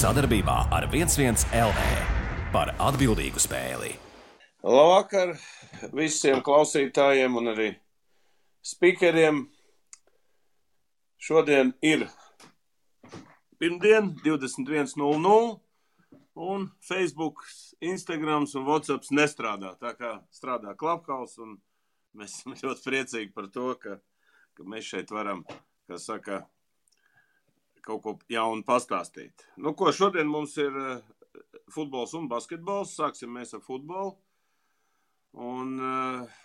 Sadarbībā ar 11 LV par atbildīgu spēli. Labvakar visiem klausītājiem un arī speakeriem. Šodien ir pirmdien, 21.00, un Facebook, Instagrams un WhatsApps nestrādā. Tā kā strādā Clubhouse, un mēs esam ļoti priecīgi par to, ka mēs šeit varam, kā saka, kaut ko jaunu pastāstīt. Nu, ko šodien mums ir futbols un basketbols. Sāksim mēs ar futbolu. Un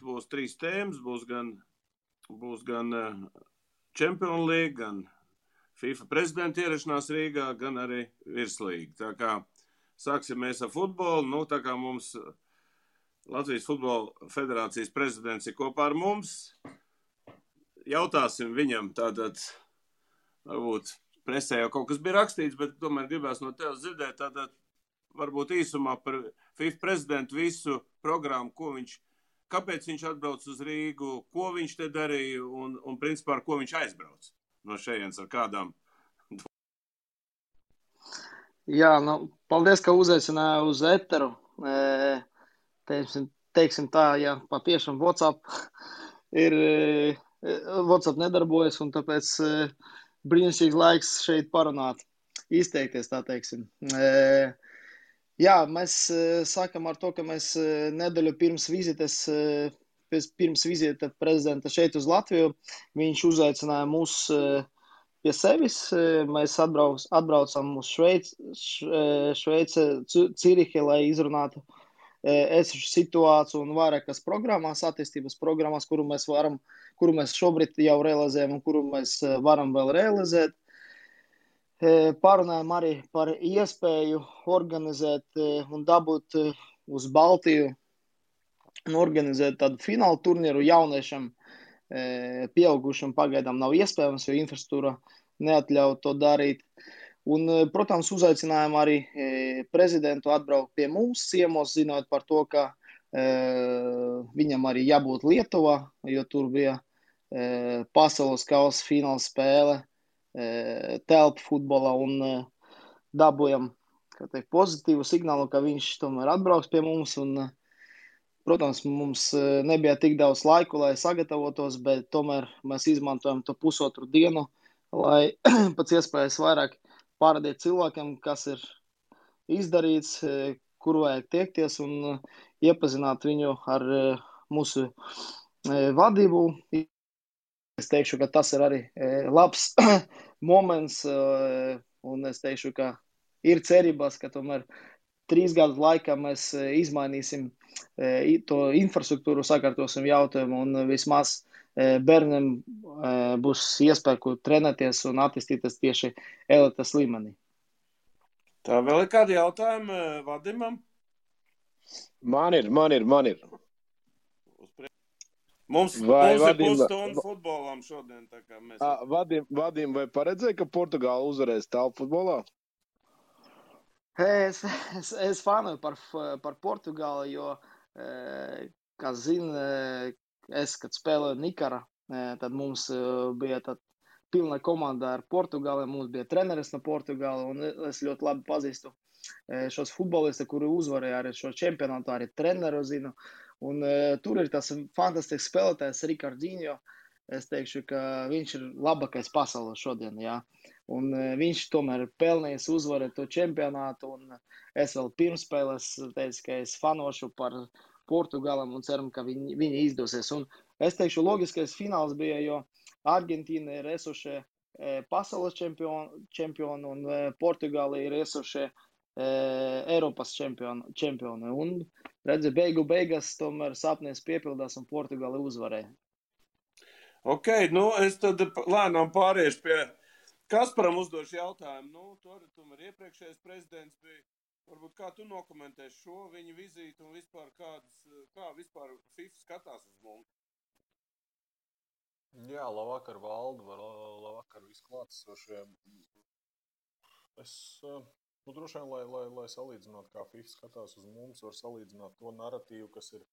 būs 3 tēmas. Būs gan Champions League, gan FIFA prezidenta ierašanās Rīgā, gan arī virslīga. Tā kā sāksim mēs ar futbolu. Nu, tā kā mums Latvijas Futbola Federācijas prezidents ir kopā ar mums, jautāsim viņam tātad, varbūt presē jau kaut kas bija rakstīts, bet tomēr gribēs no tevis dzirdēt tātad varbūt īsumā par FIFA prezidentu visu programmu, kāpēc viņš atbrauc uz Rīgu, ko viņš te darīja un principā ar ko viņš aizbrauc no šejienes ar kādām. Jā, paldies, ka uzaicināja uz eteru. Teiksim tā, ja patiešām WhatsApp nedarbojas, un tāpēc brīnišķīgs laiks šeit parunāt, izteikties, tā teiksim. Jā, mēs sākam ar to, ka mēs nedēļu pirms vizita prezidenta šeit uz Latviju, viņš uzaicināja mūs pie sevis. Mēs atbraucam uz Šveice, Cirihe, lai izrunātu esošu situāciju un vairākas programmas, attīstības programmas, kuru mēs šobrīd jau realizējam un kuru mēs varam vēl realizēt. Parunājam arī par iespēju organizēt un dabūt uz Baltiju un organizēt tādu finālu turnīru jauniešam. Pieaugušam pagaidām nav iespējams, jo infrastruktūra neatļauj to darīt. Un, protams, uzaicinājām arī prezidentu atbraukt pie mums ciemos, zinot par to, ka viņam arī jābūt Lietuvā, jo tur bija pasaules kausa fināla spēle telpu futbolā, un dabūjam pozitīvu signālu, ka viņš tomēr atbrauks pie mums. Un, protams, mums nebija tik daudz laiku, lai sagatavotos, bet tomēr mēs izmantojam to pusotru dienu, lai pēc iespējas vairāk parādīt cilvēkiem, kas ir izdarīts, kur vajag tiekties, un iepazināt viņu ar mūsu vadību. Es teikšu, ka tas ir arī labs moments, un es teikšu, ka ir cerības, ka tomēr 3 gadu laikā mēs izmainīsim to infrastruktūru, sakārtosim jautājumu, un vismaz bērniem būs iespēja trenēties un attīstīties tieši elites līmenī. Tā vēl ir kādi jautājumi Vadimam? Man ir. Mums ir pusstunda futbolam šodien. Tā kā mēs... Vadim, vai paredzēja, ka Portugāla uzvarēs telpu futbolā? Es fanoju par Portugāli, jo, kā zina, kad spēlēju Nikara, tad mums bija pilna komanda ar Portugāli, mums bija treneris no Portugāla, un es ļoti labi pazīstu šos futbolistus, kuri uzvarēja arī šo čempionātu, arī treneru zinu. Un tur ir tas fantastisks spēlētājs Ricardinho. Es teikšu, ka viņš ir labākais pasaulē šodien, jā. Un viņš tomēr pelnījis uzvarēt to čempionātu, un es vēl pirmspēlēs teicu, ka es fanošu par Portugālam un ceram, ka viņi izdosies. Un es teikšu, logiskais fināls bija, jo Argentīna ir esošie pasaules čempioni, un Portugāla ir esošie Eiropas čempioni. Un redzi, beigās tomēr sapnis piepildās un Portugāla uzvarēja. Ok, es tad lēnām pāriešu pie Kasparam uzdošu jautājumu. Tomēr iepriekšējais prezidents bija, varbūt kā tu nokomentēsi šo viņa vizīti un vispār kā vispār FIFA skatās uz mums? Jā, labvakar valdu, labvakar visklātesošiem. Droši vien, lai salīdzinātu, kā FIFA skatās uz mums, var salīdzināt to narratīvu, kas ir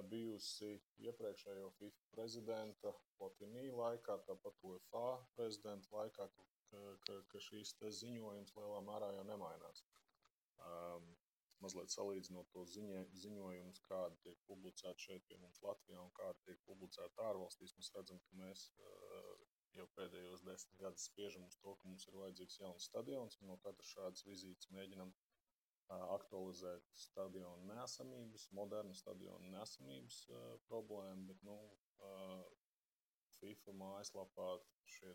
bijusi iepriekšējo FIFA prezidenta Platini laikā, tāpat UEFA prezidenta laikā, ka šīs ziņojums lielā mērā jau nemainās. Mazliet salīdzinot to ziņojumus, kādi tiek publicēti šeit pie mums Latvijā un kādi tiek publicēti ārvalstīs, mēs redzam, ka mēs jau pēdējos 10 gadus spiežam uz to, ka mums ir vajadzīgs jauns stadions, un no katras šādas vizītes mēģinam aktualizēt stadionu neesamības, modernu stadionu neesamības problēmu, bet, FIFA mājaslapā šie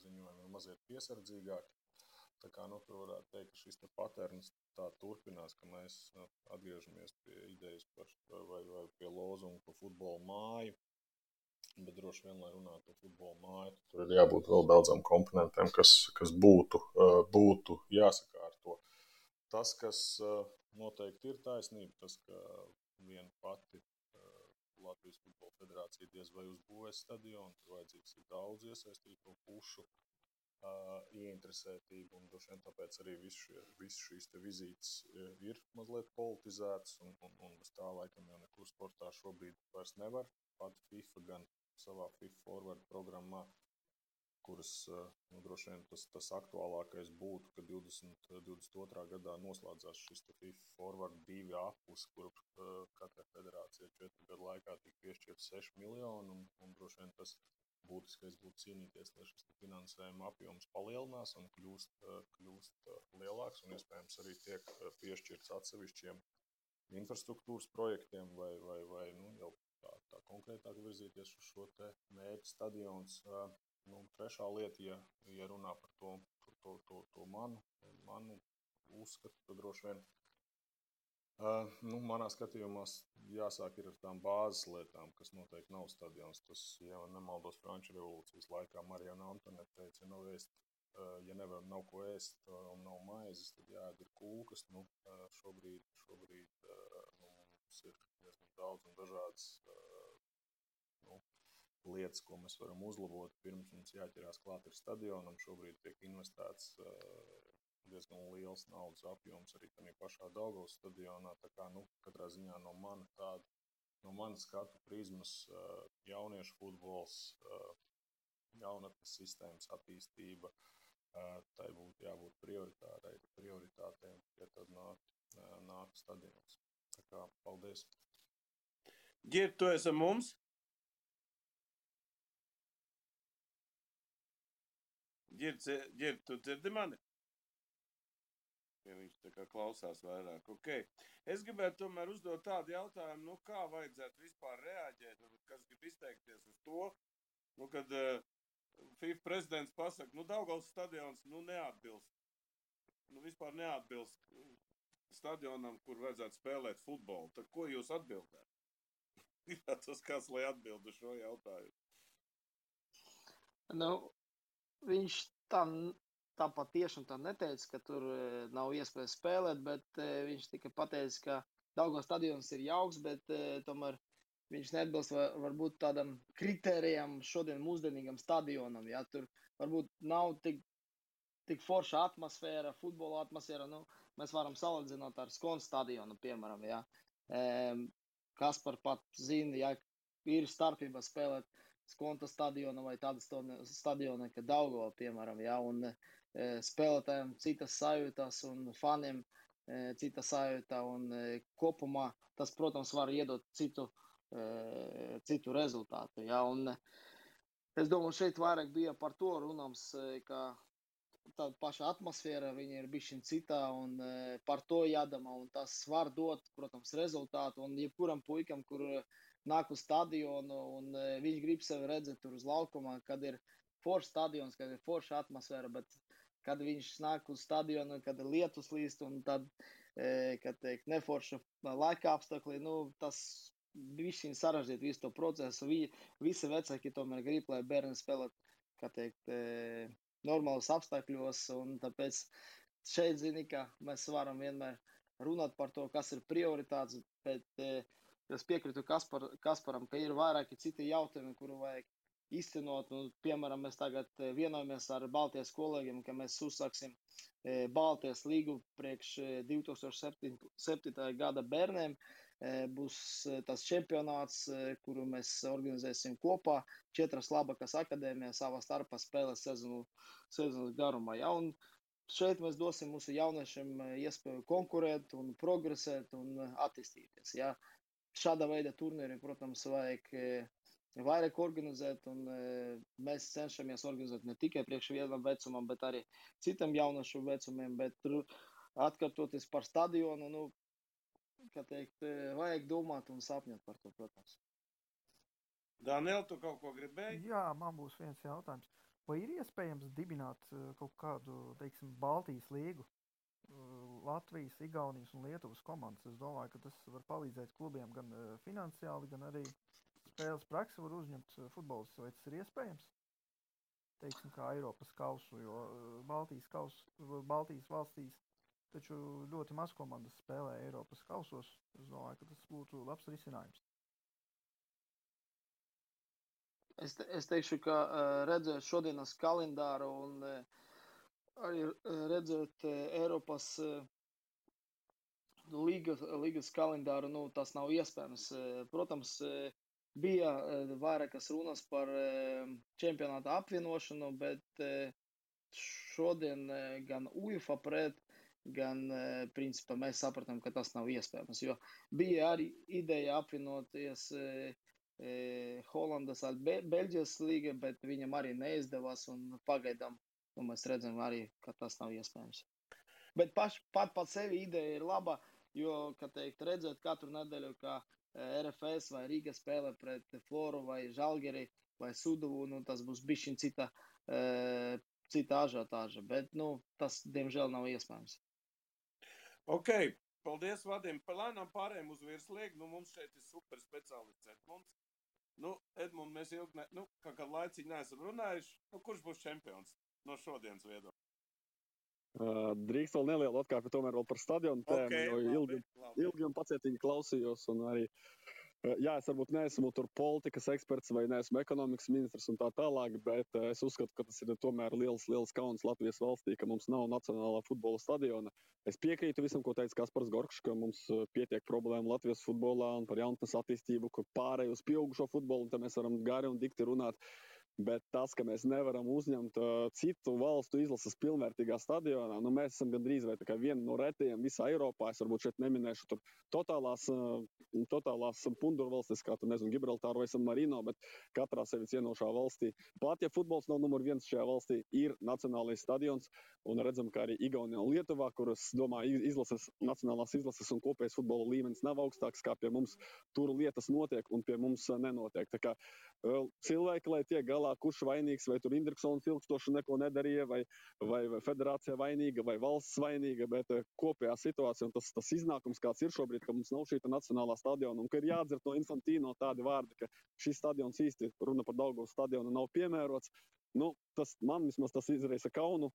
ziņojumi ir mazliet piesardzīgāki. Tā kā, tur varētu teikt, ka šis paterns tā turpinās, ka mēs atgriežamies pie idejas vai pie lozunga par futbola māju, bet droši vien, lai runātu par futbola māju, tur ir jābūt vēl daudzām komponentiem, kas būtu jāsakārto. Tas, kas noteikti ir taisnība, tas, ka viena pati Latvijas Futbola Federācija diez vai uzbūvēs stadionu, tur vajadzīgs ir daudz iesaistīto pušu ieinteresētību, un droši vien tāpēc arī viss šīs te vizītes ir mazliet politizētas, un bez tā laikam jau nekur sportā šobrīd vairs nevar. Pat FIFA gan savā FIFA Forward programmā, kuras droši vien tas aktuālākais būtu, ka 2022. gadā noslēdzās šis FIFA Forward 2 apus, kur katrai federācijai 4 gadu laikā tika piešķirt 6 miljoni, un droši vien tas būtiskais būtu cīnīties, lai šis finansējuma apjoms palielinās un kļūst lielāks, un iespējams arī tiek piešķirts atsevišķiem infrastruktūras projektiem vai jau tā konkrētāk virzīties uz šo te mērķu stadions. Trešā lieta, ja runā par to manu uzskatu, tad droši vien manā skatījumā jāsāk ir ar tām bāzes lietām, kas noteikti nav stadions. Tas, ja nemaldos, Franču revolūcijas laikā Marijana Antonete teica, ja nav ko ēst un nav maizes, tad jāēd ir kūkas. Šobrīd mums ir diezgan daudz un dažādas lietas, ko mēs varam uzlabot. Pirms mums jāķerās klāt ir stadionam, šobrīd tiek investēts diezgan liels naudas apjoms arī tādā pašā Daugavas stadionā. Tā kā, katrā ziņā no manas skatu prizmas jauniešu futbols, jaunatnes sistēmas attīstība, tai būtu jābūt prioritātei, ja tad nāk stadions. Tā kā, paldies. Gird, tu esi mums? Gird, tu dzirdi mani? Ja viņš tā kā klausās vairāk. Okay. Es gribētu tomēr uzdot tādu jautājumu, kā vajadzētu vispār reaģēt, kas grib izteikties uz to, kad FIFA prezidents pasaka, Daugavas stadions neatbilst. Vispār neatbilst stadionam, kur vajadzētu spēlēt futbolu. Tad ko jūs atbildētu? Tas kāds, lai atbild uz šo jautājumu? Viņš tā patiešām tā neteica, ka tur nav iespējas spēlēt, bet viņš tikai pateica, ka Daugavas stadions ir jauks, bet tomēr viņš neatbilst varbūt tādam kritērijam šodien mūsdienīgam stadionam. Ja? Tur varbūt nav tik forša atmosfēra, futbola atmosfēra. Mēs varam salīdzināt ar Skonas stadionu, piemēram. Ja? Kaspar pat zina, ja ir starpība spēlēt Skonta stadiona vai tāda stadiona, kā Daugava, piemēram, ja, un spēlētājiem citas sajūtas un faniem cita sajūta, un kopumā tas, protams, var iedot citu rezultātu, ja, un es domāju, šeit vairāk bija par to runāms, ka tāda paša atmosfēra, viņa ir bišķiņ citā, un par to jādomā, un tas var dot, protams, rezultātu, un jebkuram puikam, kur nāk uz stadionu, un viņš grib sevi redzēt tur uz laukumā, kad ir foršs stadions, kad ir forša atmosfēra, bet kad viņš nāk uz stadionu, kad ir lietus līst, un tad, kad teikt, neforša laika apstākļi, tas bišķiņ sarežģīt visu to procesu. Visi vecāki tomēr grib, lai bērni spēlēt, kā teikt, normālos apstākļos, un tāpēc šeit, zini, ka mēs varam vienmēr runāt par to, kas ir prioritāts, bet es piekrītu Kasparam, ka ir vairāki citi jautājumi, kuru vajag izcenot. Piemēram, mēs tagad vienojamies ar Baltijas kolēģiem, ka mēs uzsāksim Baltijas līgu priekš 2007. gada bērniem. būs tas čempionāts, kuru mēs organizēsim kopā. 4 labākās akadēmijas savā starpā spēlēs sezonas garumā. Ja? Un šeit mēs dosim mūsu jauniešiem iespēju konkurēt un progresēt un attīstīties. Ja? Šāda veida turnīri, protams, vajag vairāk organizēt, un mēs cenšamies organizēt ne tikai priekš vienam vecumam, bet arī citam jaunašu vecumiem, bet atkārtoties par stadionu, nu, kā teikt, vajag domāt un sapņot par to, protams. Daniel, tu kaut ko gribēji? Jā, man būs viens jautājums. Vai ir iespējams dibināt kaut kādu, teiksim, Baltijas līgu, Latvijas, Igaunijas un Lietuvas komandas? Es domāju, ka tas var palīdzēt klubiem gan finansiāli, gan arī spēles praksi var uzņemt futbolistus. Vai tas ir iespējams? Teiksim, kā Eiropas kausu, jo Baltijas valstīs taču ļoti maz komandas spēlē Eiropas kausos. Es domāju, ka tas būtu labs risinājums. Es teikšu, ka redzēt šodienas kalendāru un arī redzēt Eiropas līgas kalendāru, nu, tas nav iespējams. Protams, bija vairākas runas par čempionāta apvienošanu, bet šodien gan UEFA pret, gan principā mēs sapratām, ka tas nav iespējams, jo bija arī ideja apvienoties Holandas ar Beļģijas līga, bet viņam arī neizdevās un pagaidām mēs redzam arī, ka tas nav iespējams. Bet pat sevi ideja ir laba, jo, kā teikt, redzēt katru nedēļu, kā RFS vai Rīga spēlē pret Floru vai Žalgiri vai Suduvu, nu tas būs bišķiņ cita ažiotāža, bet, nu, tas, diemžēl, nav iespējams. Ok, paldies, Vadim. Lēnām pārējiem uz virslīgu. Nu, mums šeit ir super speciālists Edmunds. Nu, Edmund, mēs ilgi, kā laicīgi neesam runājuši. Nu, kurš būs čempions no šodienas viedokļa? Drīkst vēl nelielu atkāpi tomēr vēl par stadionu tēmu, jo ilgi un pacietīgi klausījos un arī, jā, es varbūt neesmu tur politikas eksperts vai neesmu ekonomikas ministrs un tā tālāk, bet es uzskatu, ka tas ir tomēr liels kauns Latvijas valstī, ka mums nav nacionālā futbola stadiona. Es piekrītu visam, ko teica Kaspars Gorkšs, ka mums pietiek problēma Latvijas futbolā un par jaunatnes attīstību, kur pārēj uz pieaugušo futbolu, un te mēs varam gari un dikti runāt. Bet tas, ka mēs nevaram uzņemt citu valstu izlases pilnvērtīgā stadionā, nu mēs esam gandrīz vai tā kā viena no retajiem visā Eiropā. Es varbūt šeit neminēšu tur totālās pundurvalstis, kā tur, nezinu, Gibraltāru vai San Marino, bet katrā sevi cienošā valstī. Pat ja futbols nav numur 1 šajā valstī, ir nacionālais stadions, un redzam, ka arī Igaunijā un Lietuvā, kuras, domāju, nacionālās izlases un kopējais futbola līmenis nav augstāks, kā pie mums tur lietas notiek un pie mums nenotiek. Tā kā cilvēki, lai tiek galā, kurš vainīgs, vai tur Indriksons ilgstoši neko nedarīja, vai federācija vainīga, vai valsts vainīga, bet kopējā situācija un tas iznākums, kāds ir šobrīd, ka mums nav šī nacionālā stadiona, un ka ir jāatdzird no Infantino tādi vārdi, ka šis stadions īsti, runa par Daugavas stadionu, nav piemērots. Nu, man vismaz tas izraisa kaunu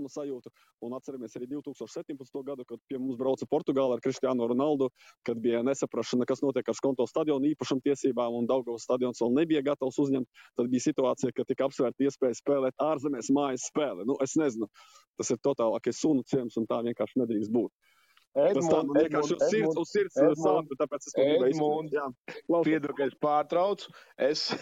sajūtu, un atceramies arī 2017. gadu, kad pie mums brauca Portugāla ar Cristiano Ronaldo, kad bija nesaprašana, kas notiek ar Skonto stadionu īpašumtiesībām, un Daugavas stadions vēl nebija gatavs uzņemt. Tad bija situācija, ka tika apsvērta iespēja spēlēt ārzemēs mājas spēli. Nu, es nezinu, tas ir totālākais sunu ciems, un tā vienkārši nedrīkst būt. Edmund, piedod, ka es pārtraucu. Es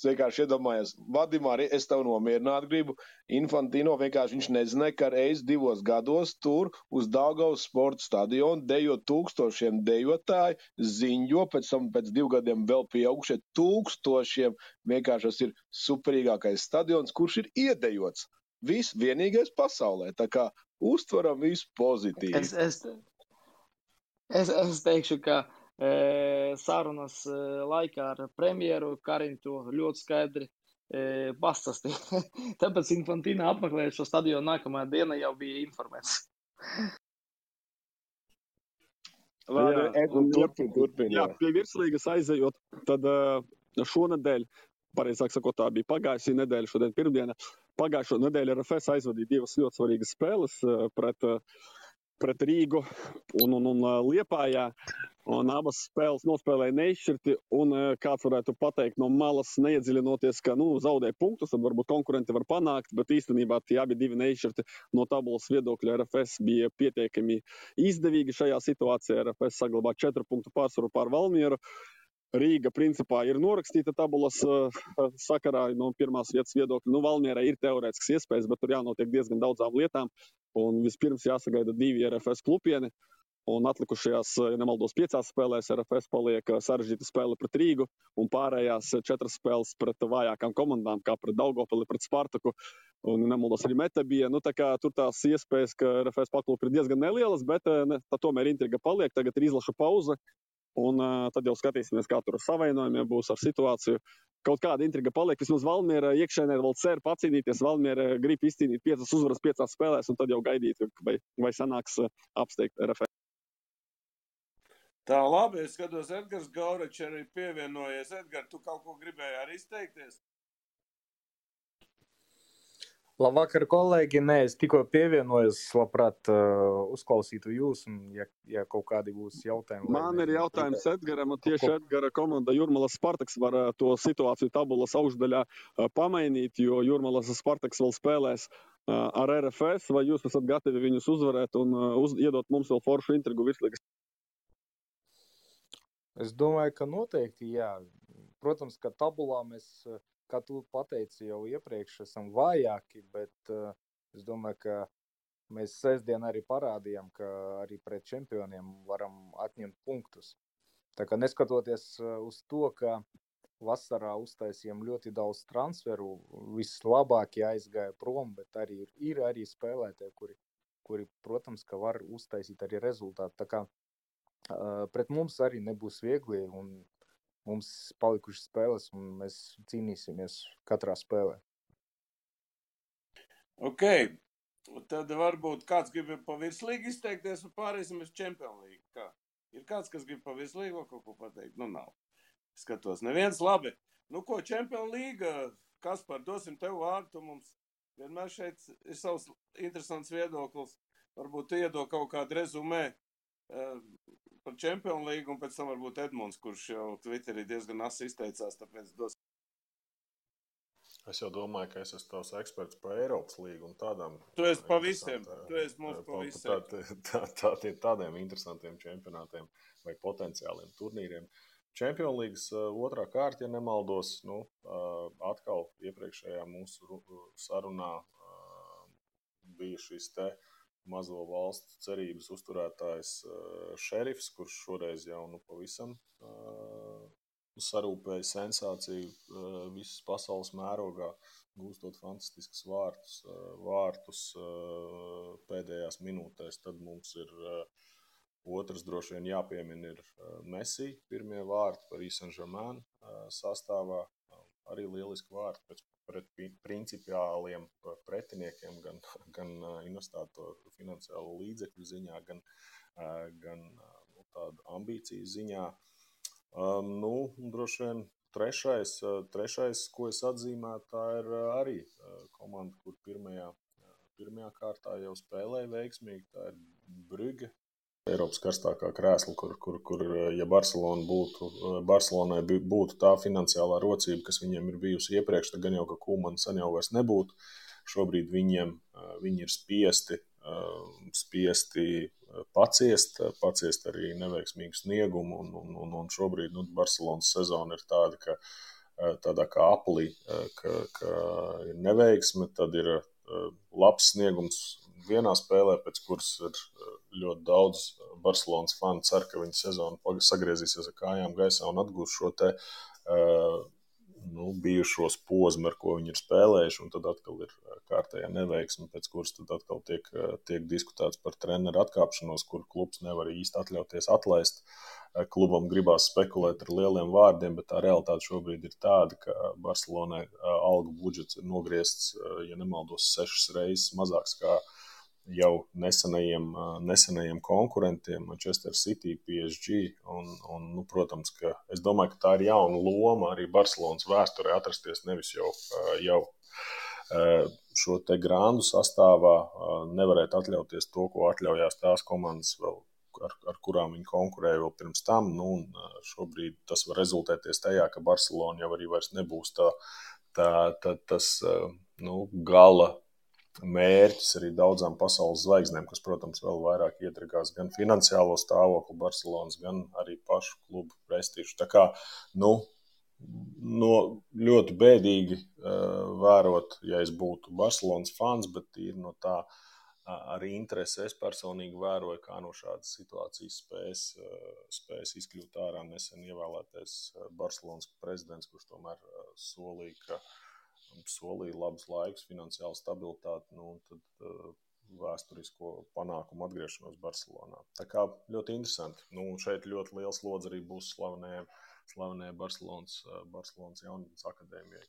vienkārši iedomājos, Vadim, arī es tev nomierināt gribu. Infantino vienkārši viņš nezināja, ka reiz 2 gados tur uz Daugavas sporta stadionu dejo 1000 dejotāji, ziņo, pēc tam pēc 2 gadiem vēl pieaugušie 1000. Vienkārši tas ir superīgākais stadions, kurš ir iedejots. Viss vienīgais pasaulē. Tā kā uztveram visu pozitīvi. Es teikšu, ka sarunas laikā ar premjeru Karim to ļoti skaidri pastāstīja. Tāpēc Infantino apmeklējot šo stadionu nākamajā dienā jau bija informēts. Turpin. Jā, pie virslīgas aizejot, tad šonedēļ, pareizāk sakot, tā bija pagājušā nedēļa, šodien pirmdiena. Pagājušo nedēļu RFS aizvadīja 2 ļoti svarīgas spēles pret Rīgu un Liepājā. Un abas spēles nospēlēja neizšķirti, un kāds varētu pateikt no malas, neiedziļinoties, ka zaudēja punktus, tad varbūt konkurenti var panākt, bet īstenībā tie abi divi neizšķirti no tabulas viedokļa RFS bija pietiekami izdevīgi šajā situācijā. RFS saglabā 4 punktu pārsvaru pār Valmieru. Rīga principā ir norakstīta tabulas sakarā no pirmās vietas viedokļa. Valmierai ir teorētisks iespējas, bet tur jānotiek diezgan daudzām lietām, un vispirms jāsagaida 2 RFS klupieni. Un atlikušajās, ja nemaldos, 5 spēlēs RFS paliek sarežģīta spēle pret Rīgu un pārējās 4 spēles pret vājākām komandām, kā pret Daugavpili, pret Spartaku un nemaldos arī Meta bija. Tā kā tur tās iespējas, ka RFS paklūp ir diezgan nelielas, bet tomēr intriga paliek. Tagad ir izlaša pauze un tad jau skatīsimies, kā tur ar savainojumiem būs ar situāciju. Kaut kāda intriga paliek. Vismaz Valmiera iekšēnē vēl cer pacīnīties. Valmiera grib izcīnīt 5 uzvaras 5 spēlēs un tad jau gaidīt, vai sanāks apsteigt RFS. Tā, labi, es skatos, Edgars Gauračs arī pievienojies. Edgar, tu kaut ko gribēji arī izteikties? Labvakar, kolēģi. Nē, es tikko pievienojos, labprāt uzklausītu jūs, un ja kaut kādi būs jautājumi. Man ir jautājums Edgaram, un tieši Edgara komanda Jūrmalas Spartaks var to situāciju tabulas augšdaļā pamainīt, jo Jūrmalas Spartaks vēl spēlēs ar RFS, vai jūs esat gatavi viņus uzvarēt un iedot mums vēl foršu intrigu virslīgas? Es domāju, ka noteikti, jā. Protams, ka tabulā mēs, kā tu pateici, jau iepriekš esam vājāki, bet es domāju, ka mēs sestdien arī parādījām, ka arī pret čempioniem varam atņemt punktus. Tā kā neskatoties uz to, ka vasarā uztaisījām ļoti daudz transferu, vislabākie aizgāja prom, bet arī ir arī spēlētāji, kuri, protams, ka var uztaisīt arī rezultātu. Tā kā pret mums arī nebūs viegli, un mums palikušas spēles, un mēs cīnīsimies katrā spēlē. Ok, tad varbūt kāds grib pa virslīgu izteikties, un pārēsim uz Champions League. Kā? Ir kāds, kas grib pa virslīgu kaut ko pateikt? Nav. Skatos, neviens labi. Ko, Champions League, Kaspar, dosim tev vārdu, tu mums vienmēr šeit ir savs interesants viedoklis. Varbūt tu iedod kaut kādu rezumē par Champions League, un pēc tam varbūt Edmunds, kurš jau Twitterī diezgan asi izteicās, tāpēc dos. Es jau domāju, ka es esmu tavs eksperts par Eiropas līgu un tādām. Tu esi pa visiem, tu esi mums pa visiem. Tādiem interesantiem čempionātiem vai potenciāliem turnīriem. Champions Leagues otrā kārta, ja nemaldos, atkal iepriekšējā mūsu sarunā bija šis te mazo valstu cerības uzturētājs Šerifs, kurš šoreiz jau pavisam sarūpēja sensāciju visas pasaules mērogā, gūstot fantastiskas vārtus pēdējās minūtēs. Tad mums ir otrs droši vien jāpiemina ir Messi, pirmie vārti par Saint-Germain sastāvā. Arī lieliski vārti pret principiāliem pretiniekiem, gan investēto finansiālo līdzekļu ziņā, gan tādu ambīciju ziņā. Droši vien trešais, ko es atzīmētu, tā ir arī komanda, kur pirmajā kārtā jau spēlēja veiksmīgi, tā ir Brugge. Eiropas karstākā krēsla, kur ja Barcelonai būtu tā finansiālā rocība, kas viņiem ir bijusi iepriekš, tad gan jau, ka Koeman sen jau vairs nebūtu. Šobrīd viņi ir spiesti paciest arī neveiksmīgu sniegumu, un šobrīd Barcelonas sezona ir tāda, ka tādā kā aplī, ka ir neveiksme, tad ir labs sniegums vienā spēlē, pēc kuras ir ļoti daudz Barcelonas fani cer, ka viņa sezona sagriezīsies ar kājām gaisā un atgūs šo te bijušos posmu, ar ko viņi ir spēlējuši, un tad atkal ir kārtējā neveiksme, pēc kuras tad atkal tiek diskutēts par treneru atkāpšanos, kur klubs nevar īsti atļauties atlaist. Klubam gribās spekulēt ar lieliem vārdiem, bet tā realitāte šobrīd ir tāda, ka Barcelonai algu budžets ir nogriezts, ja nemaldos, 6 reizes mazāks kā jau nesenajiem konkurentiem, Manchester City, PSG, un protams, ka es domāju, ka tā ir jauna loma arī Barcelonas vēsturē atrasties nevis jau šo te grandu sastāvā nevarētu atļauties to, ko atļaujās tās komandas vēl, ar kurām viņi konkurēja vēl pirms tam. Nu, un šobrīd tas var rezultēties tajā, ka Barcelona jau arī vairs nebūs tas gala mērķis arī daudzām pasaules zvaigznēm, kas, protams, vēl vairāk iedragās gan finansiālo stāvokli Barcelonas, gan arī pašu klubu prestižu. Tā kā, ļoti bēdīgi vērot, ja es būtu Barcelonas fans, bet ir no tā arī interesi. Es personīgi vēroju, kā no šādas situācijas spējas izkļūt ārā nesen ievēlētais Barcelonas prezidents, kurš tomēr solīja labus laikus, finansiālu stabilitāti, un tad vēsturisko panākumu atgriešanos Barcelonā. Tā kā ļoti interesanti. Šeit ļoti liels lodze arī būs slavenajai Barcelonas jaunatnes akadēmijai,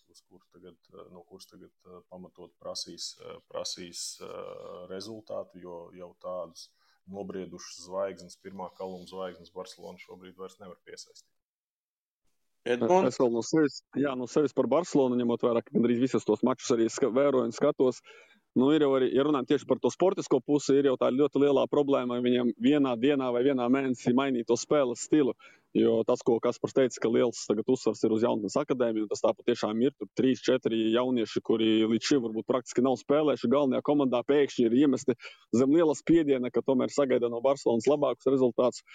no kuras tagad pamatot prasīs rezultātu, jo jau tādus nobriedušas zvaigznes, pirmā kaluma zvaigznes Barcelona šobrīd vairs nevar piesaistīt. Edmunds? Es vēl no sevis par Barcelonu, ņemot vērā, ka gandrīz visus tos mačus arī vēroju un skatos. Ir jau arī, ja runājam tieši par to sportisko pusi, ir jau tā ļoti lielā problēma, viņiem vienā dienā vai vienā mēnesī mainīt to spēles stilu. Jo tas, ko Kaspars teica, ka liels tagad uzsvars ir uz jaunatnes akadēmiju, un tas tā patiešām ir. Tur 3-4 jaunieši, kuri līdz šim varbūt praktiski nav spēlējuši galvenajā komandā, pēkšņi ir iemesti zem liela spiediena, ka tomēr sagaida no Barcelonas labākus rezultātus.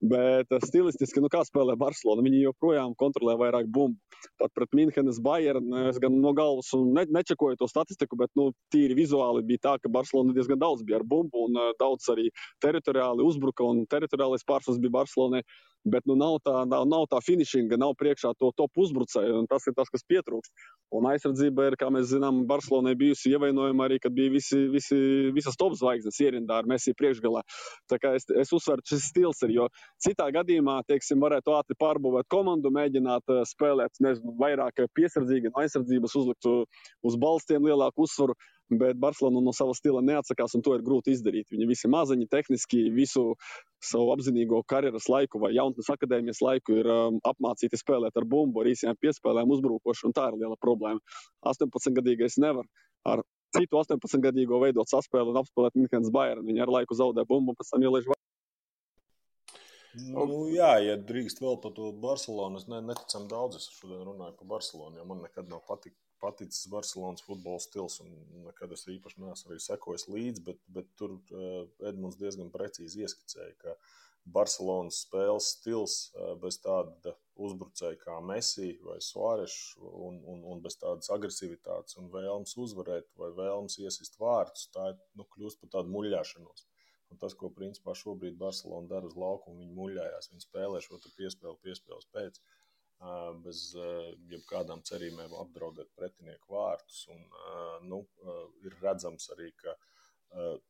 Bet stilistiski, kā spēlē Barcelona, viņi joprojām kontrolē vairāk bumbu. Pat pret Minhenes Bayern, es gan no galvas nečekoju to statistiku, bet tīri vizuāli bija tā, ka Barcelona diezgan daudz bija ar bumbu un daudz arī teritoriāli uzbruka un teritoriālais pārsvars bija Barcelonai. Bet nav tā finišinga, nav priekšā to top uzbrucēju, un tas ir tas, kas pietrūkst. Un aizsardzība ir, kā mēs zinām, Barcelonai bijusi ievainojama arī, kad bija visas top zvaigznes ierindā ar Messi priekšgalā. Tā kā es uzsveru, šis stils ir, jo citā gadījumā, varētu ātri pārbūvēt komandu, mēģināt spēlēt, vairāk piesardzīgi no aizsardzības, uzlikt uz balstiem lielāku uzsvaru, bet Barcelona no sava stila neatsakās, un to ir grūti izdarīt. Viņi visi maziņi, tehniski, visu savu apzinīgo karjeras laiku vai jaunatnes akadēmijas laiku ir apmācīti spēlēt ar bumbu, ar īsajām piespēlēm uzbrukoši, un tā ir liela problēma. 18-gadīgais nevar ar citu 18-gadīgo veidot saspēli un apspēlēt Minhenes Bayern. Viņi ar laiku zaudē bumbu, un pēc tam ielaiž Jā, ja drīkst vēl par to Barcelonu, es neticam daudz, es šodien runāju par Barcelonu, jo man nekad nav paticis Barcelonas futbola stils, un nekad es īpaši neesmu arī sekojis līdzi, bet tur Edmunds diezgan precīzi ieskicēja, ka Barcelonas spēles stils bez tāda uzbrucēja kā Messi vai Suárez un bez tādas agresivitātes un vēlmes uzvarēt vai vēlmes iesist vārtus, tā kļūst par tādu muļļāšanos. Un tas, ko principā šobrīd Barcelona dara uz laukumu, viņi muļļājās, viņi spēlē šo piespēles pēc, bez jebkādām cerībām apdraudēt pretinieku vārtus. Un ir redzams arī, ka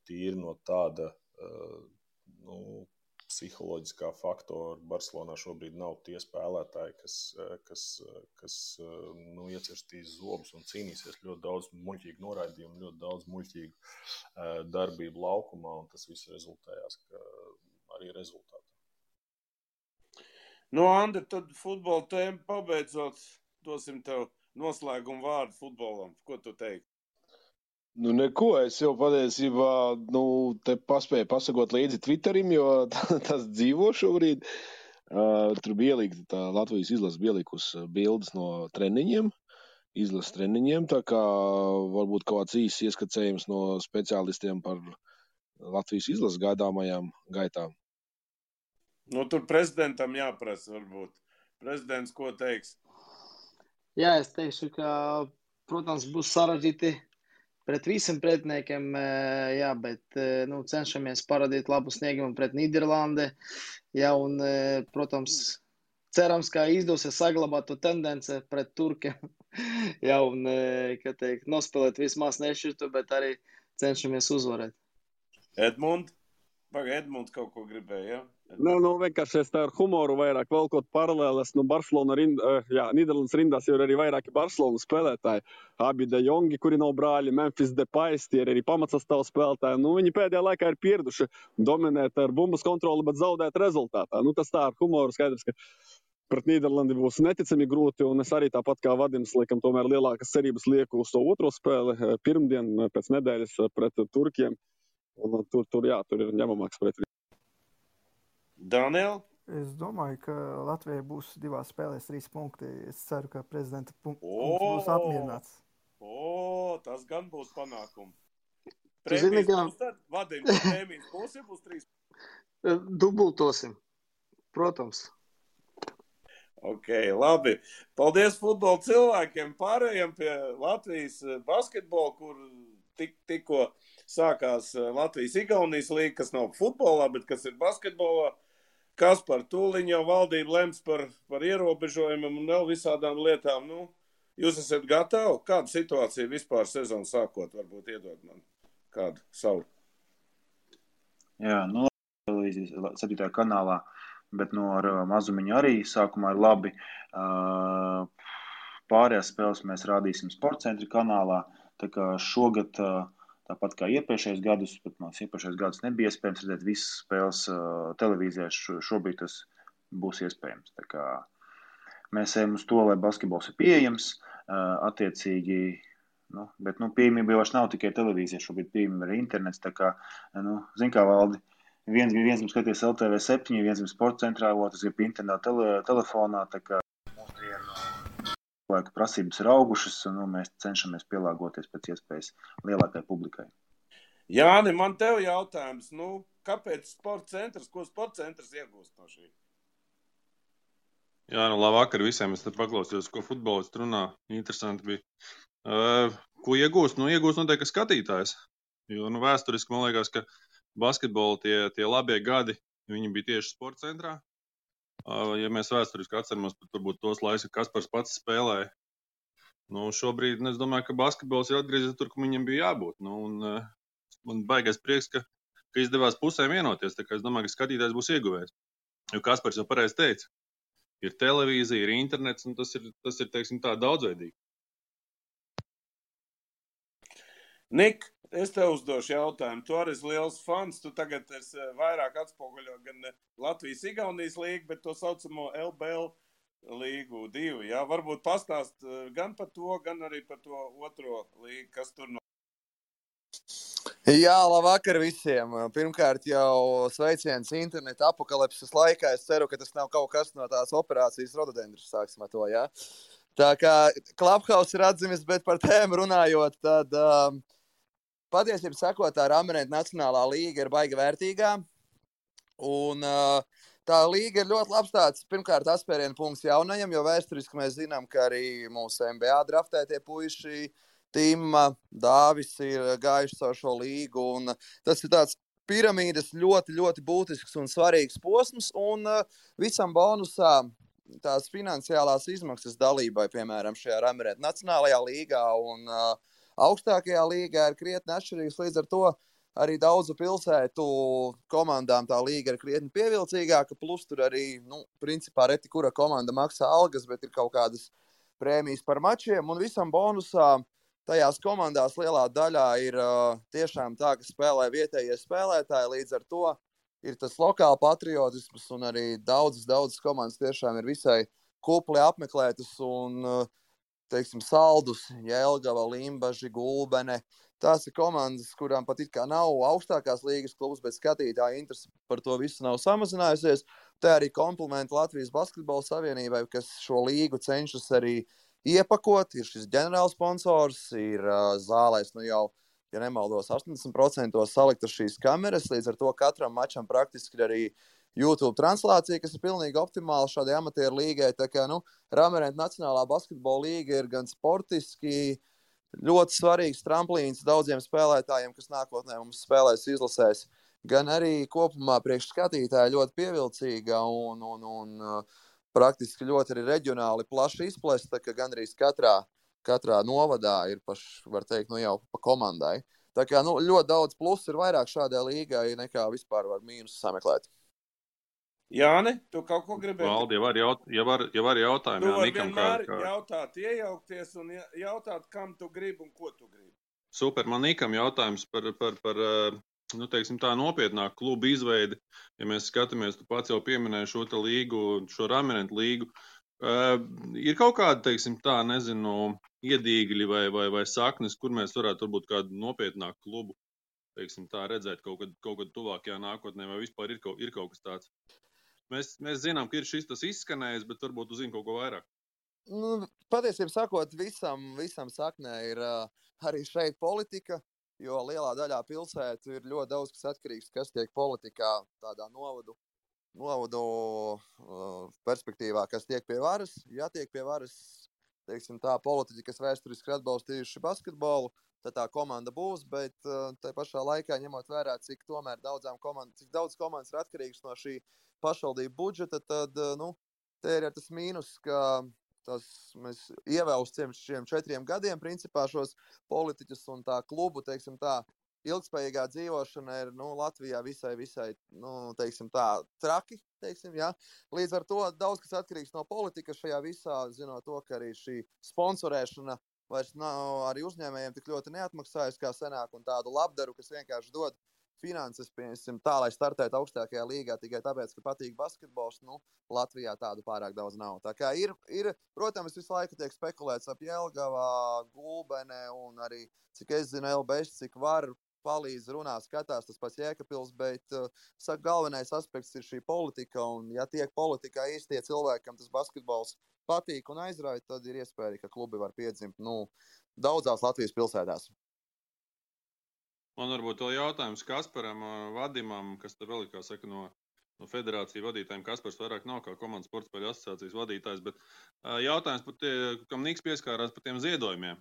tīri no tāda psiholoģiskā faktora Barcelonā šobrīd nav tie spēlētāji, kas iecirstīs zobus un cīnīsies ļoti daudz muļķīgu noraidījumu, ļoti daudz muļķīgu darbību laukumā, un tas viss rezultējās arī rezultātā. Andri, tad futbola tēma pabeidzot, dosim tev noslēgumu vārdu futbolam. Ko tu teiksi? Neko, es jau patiesībā te paspēju pasakot līdzi Twitterim, jo tas dzīvo šobrīd. Tur bija ielīgta Latvijas izlase, bija ielikusi bildes no treniņiem, izlases treniņiem, tā kā varbūt kaut kāds īsts ieskicējums no speciālistiem par Latvijas izlases gaidāmajām gaitām. Tur prezidentam jāprasa varbūt. Prezidents, ko teiks? Jā, es teikšu, ka, protams, būs sarežģīti pret visiem pretiniekiem, jā, bet cenšamies parādīt labu sniegumu pret Nīderlandi. Jā, un, protams, cerams, ka izdosies saglabāt to tendenci pret turkiem. Jā, un, nospēlēt vismaz nešķirtu, bet arī cenšamies uzvarēt. Edmunds kaut ko gribēja, jā? Vienkārši es tā ar humoru vairāk velkot paralēles. Barcelona Nīderlandes rindās jau ir arī vairāki Barcelonas spēlētāji. Abi De Jongi, kuri nav brāļi, Memphis Depais, tie ir arī pamatsastāvu spēlētāji. Viņi pēdējā laikā ir pieraduši dominēt ar bumbas kontroli, bet zaudēt rezultātā. Tas tā ar humoru skaidrs, ka pret Nīderlandi būs neticami grūti, un es arī tāpat kā Vadims, laikam, tomēr lielākas cerības lieku uz to otro spēli pirmdien pēc nedēļas pret Turkiem, un tur ir ņemamāks pret. Daniel? Es domāju, ka Latvijai būs 2 spēlēs 3 punkti. Es ceru, ka prezidenta punkts būs apmierināts. Tas gan būs panākumi. zini, Prēmijas ka- būs tad? Vadim, prēmijas būs 3. Dubultosim. Protams. Ok, labi. Paldies futbola cilvēkiem. Pārējiem pie Latvijas basketbola, kur tikko sākās Latvijas-Igaunijas līga, kas nav futbolā, bet kas ir basketbolā. Kas par tūliņ jau valdību lems par ierobežojumiem un vēl visādām lietām. Nu, jūs esat gatavi? Kāda situācija vispār sezonu sākot? Varbūt iedod man kādu savu. Jā, nu, televīzijas 7. kanālā, bet no ar mazumiņu arī sākumā ir labi. Pārējās spēles mēs rādīsim Sportcentra kanālā, tā kā šogad, tāpat kā iepriekšējos gadus, pat mums iepriekšējos gadus nebija iespējams redzēt visas spēles televīzijā, šobrīd tas būs iespējams. Tā kā mēs ejam uz to, lai basketbols ir pieejams, attiecīgi, bet pieejamība jau vairs nav tikai televīzija, šobrīd pieejamība ir internets, tā kā, zin kā Valdi, viens grib skatīties LTV7, viens grib Sportcentrā, otrs grib internetā telefonā, tā kā laika prasības ir augušas, un mēs cenšamies pielāgoties pēc iespējas lielākai publikai. Jāni, man tev jautājums, kāpēc Sportcentrs, ko Sportcentrs iegūst no šī? Jā, labvakar visiem, es te paklausījos, ko futbolists runā, interesanti bija. Ko iegūst? Iegūst noteikti skatītājs, jo vēsturiski man liekas, ka basketbola tie labie gadi, viņi bija tieši Sportcentrā. Ja mēs vēsturiski atceramies, tad varbūt tos laikus, ka Kaspars pats spēlēja. Šobrīd es domāju, ka basketbols ir atgriezies tur, kur viņam bija jābūt. Man baigais prieks, ka izdevās pusēm vienoties. Tā kā es domāju, ka skatītājs būs ieguvējis. Jo Kaspars jau pareizi teica, ir televīzija, ir internets, un tas ir teiksim tā, daudzveidīgi. Nik, es tev uzdošu jautājumu. Tu arī esi liels fans. Tu tagad esi vairāk atspoguļo gan Latvijas-Igaunijas līgu, bet to saucamo LBL līgu 2. Jā? Varbūt pastāst gan par to, gan arī par to otro līgu, kas tur Jā, labvakar visiem. Pirmkārt jau sveiciens interneta apokalipses laikā. Es ceru, ka tas nav kaut kas no tās operācijas rododendrus, sāksim ar to, jā. Tā kā Clubhouse ir atzimis, bet par tēmu runājot, tad patiesībā sakot, tā Ramenēta Nacionālā līga ir baiga vērtīgā. Un tā līga ir ļoti labs tāds, pirmkārt, atspērienu punkts jaunajam, jo vēsturiski mēs zinām, ka arī mūsu NBA draftētie puiši Tima, Dāvis ir gājuši caur šo līgu. Un tas ir tāds piramīdas ļoti, ļoti būtisks un svarīgs posms. Un visam bonusā tās finansiālās izmaksas dalībai, piemēram, šajā Ramenēta Nacionālajā līgā un augstākajā līgā ir krietni atšķirīgs. Līdz ar to arī daudzu pilsētu komandām tā līga ir krietni pievilcīgāka. Plus tur arī, principā reti kura komanda maksā algas, bet ir kaut kādas prēmijas par mačiem. Un visam bonusā tajās komandās lielā daļā ir tiešām tā, ka spēlē vietējie spēlētāji. Līdz ar to ir tas lokāla patriotisms un arī daudzas komandas tiešām ir visai kupli apmeklētas un, teiksim, Saldus, Jelgava, Limbaži, Gulbene. Tās ir komandas, kurām pat it kā nav augstākās līgas klubs, bet skatītāja interese par to visu nav samazinājusies. Tā arī komplimenti Latvijas Basketbola Savienībai, kas šo līgu cenšas arī iepakot. Ir šis ģenerālsponsors, ir zālēs, jau, ja nemaldos, 80% saliktas šīs kameras, līdz ar to katram mačam praktiski ir arī YouTube translācija, kas ir pilnīgi optimāla šādai amatieru līgai. Tā kā, Ramenēta Nacionālā basketbola līga ir gan sportiski ļoti svarīgs tramplīns daudziem spēlētājiem, kas nākotnē mums spēlēs izlasēs, gan arī kopumā priekš skatītāji ļoti pievilcīga un praktiski ļoti arī reģionāli plaši izplesta, ka gandrīz katrā novadā ir var teikt, jau pa komandai. Tā kā, ļoti daudz plusu ir vairāk šādai līgai nekā vispār var mīnus sameklēt. Jāni, tu kaut ko gribēji? Valdi, jau var jautājumi. Tu vari vienmēr jautāt, iejaukties un jautāt, kam tu gribi un ko tu gribi. Super, man Nikam jautājums par teiksim tā, nopietnāk klubu izveidi, ja mēs skatāmies, tu pats jau pieminēji šo te līgu, šo raminetu līgu, ir kaut kāda, teiksim tā, nezinu, iedīgļi vai saknes, kur mēs varētu varbūt kādu nopietnāku klubu, teiksim tā, redzēt kaut kad tuvākajā nākotnē, vai vispār ir kaut kas tāds. Mēs zinām, ka ir šis tas izskanējis, bet varbūt uzzina kaut ko vairāk. Patiesībā sakot, visam saknē ir arī šeit politika, jo lielā daļā pilsētu ir ļoti daudz, kas atkarīgs, kas tiek politikā tādā novadu perspektīvā, kas tiek pie varas. Ja tiek pie varas, teiksim tā, politiķi, kas vēsturiski atbalstījuši basketbolu, tad tā komanda būs, bet tai pašā laikā ņemot vērā, cik daudz komandas ir atkarīgs no šī pašvaldību budžeta, tad, te ir tas mīnus, ka mēs ievēlstam šiem 4 gadiem principā šos politiķus un tā klubu, teiksim tā, ilgspējīgā dzīvošana ir Latvijā visai teiksim tā, traki, teiksim, ja. Līdz ar to daudz kas atkarīgs no politikas šajā visā, zinot to, ka arī šī sponsorēšana vairs nav arī uzņēmējiem tik ļoti neatmaksājas kā senāk un tādu labdaru, kas vienkārši dod finanses, piemēram, tā, lai startētu augstākajā līgā tikai tāpēc, ka patīk basketbols, Latvijā tādu pārāk daudz nav. Tā kā ir, protams, visu laiku tiek spekulēts ap Jelgavā, Gulbenē un arī, cik es zinu, LBS, cik var palīdz runā, skatās tas pats Jēkabpils, bet, saka, galvenais aspekts ir šī politika, un ja tiek politikā īstie cilvēki, kam tas basketbols patīk un aizrauj, tad ir iespēja, ka klubi var piedzimt, daudzās Latvijas pilsētās. Man varbūt vēl jautājums Kasparam, Vadimam, kas te vēl ir, kā saka, no federāciju vadītājiem. Kaspars vairāk nav kā komandas sportspēļu asociācijas vadītājs, bet jautājums par kam Niks pieskārās par tiem ziedojumiem.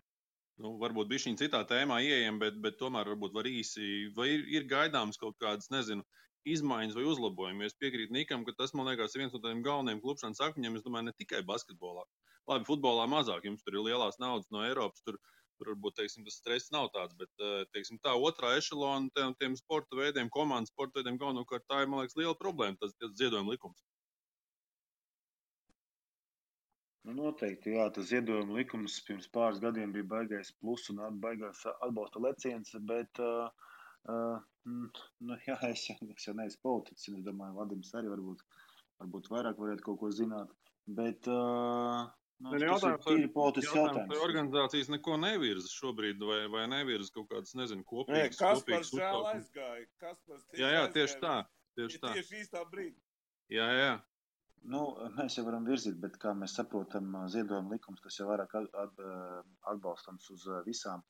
Varbūt bišķiņ citā tēmā ieejam, bet tomēr varbūt var īsi, vai ir gaidāms kaut kādas, nezinu, izmaiņas vai uzlabojumi. Es piekrītu Nikam, ka tas, man liekas, ir viens no tādiem galvenajiem klubšanas akmeņiem, es domāju, ne tikai basketbolā. Labi, futbolā mazāk, jums tur ir lielās naudas no Eiropas, tur varbūt, teiksim, tas stress nav tāds, bet, teiksim, tā otrā ešalona tiem sporta veidiem, komandas sporta veidiem galvenokārt tā ir, man liekas, liela problēma, tas ziedojuma likums. Noteikti, jā, tas ziedojuma likums pirms pāris gadiem bija baigais plus un baigās atbalsta leciens, bet, jā, es jau neesmu politiķis, es domāju, Vadims arī varbūt vairāk varētu kaut ko zināt, bet, tas ir tīri politisks jautājums. Vai organizācijas neko nevirza šobrīd, vai nevirza kaut kādas, nezinu, kopīgas. Kaspars žēl aizgāja. Jā, tieši tā. Tieši īstā brīdī. Jā. Mēs jau varam virzīt, bet kā mēs saprotam, ziedojuma likums, tas jau vairāk atbalstams uz visām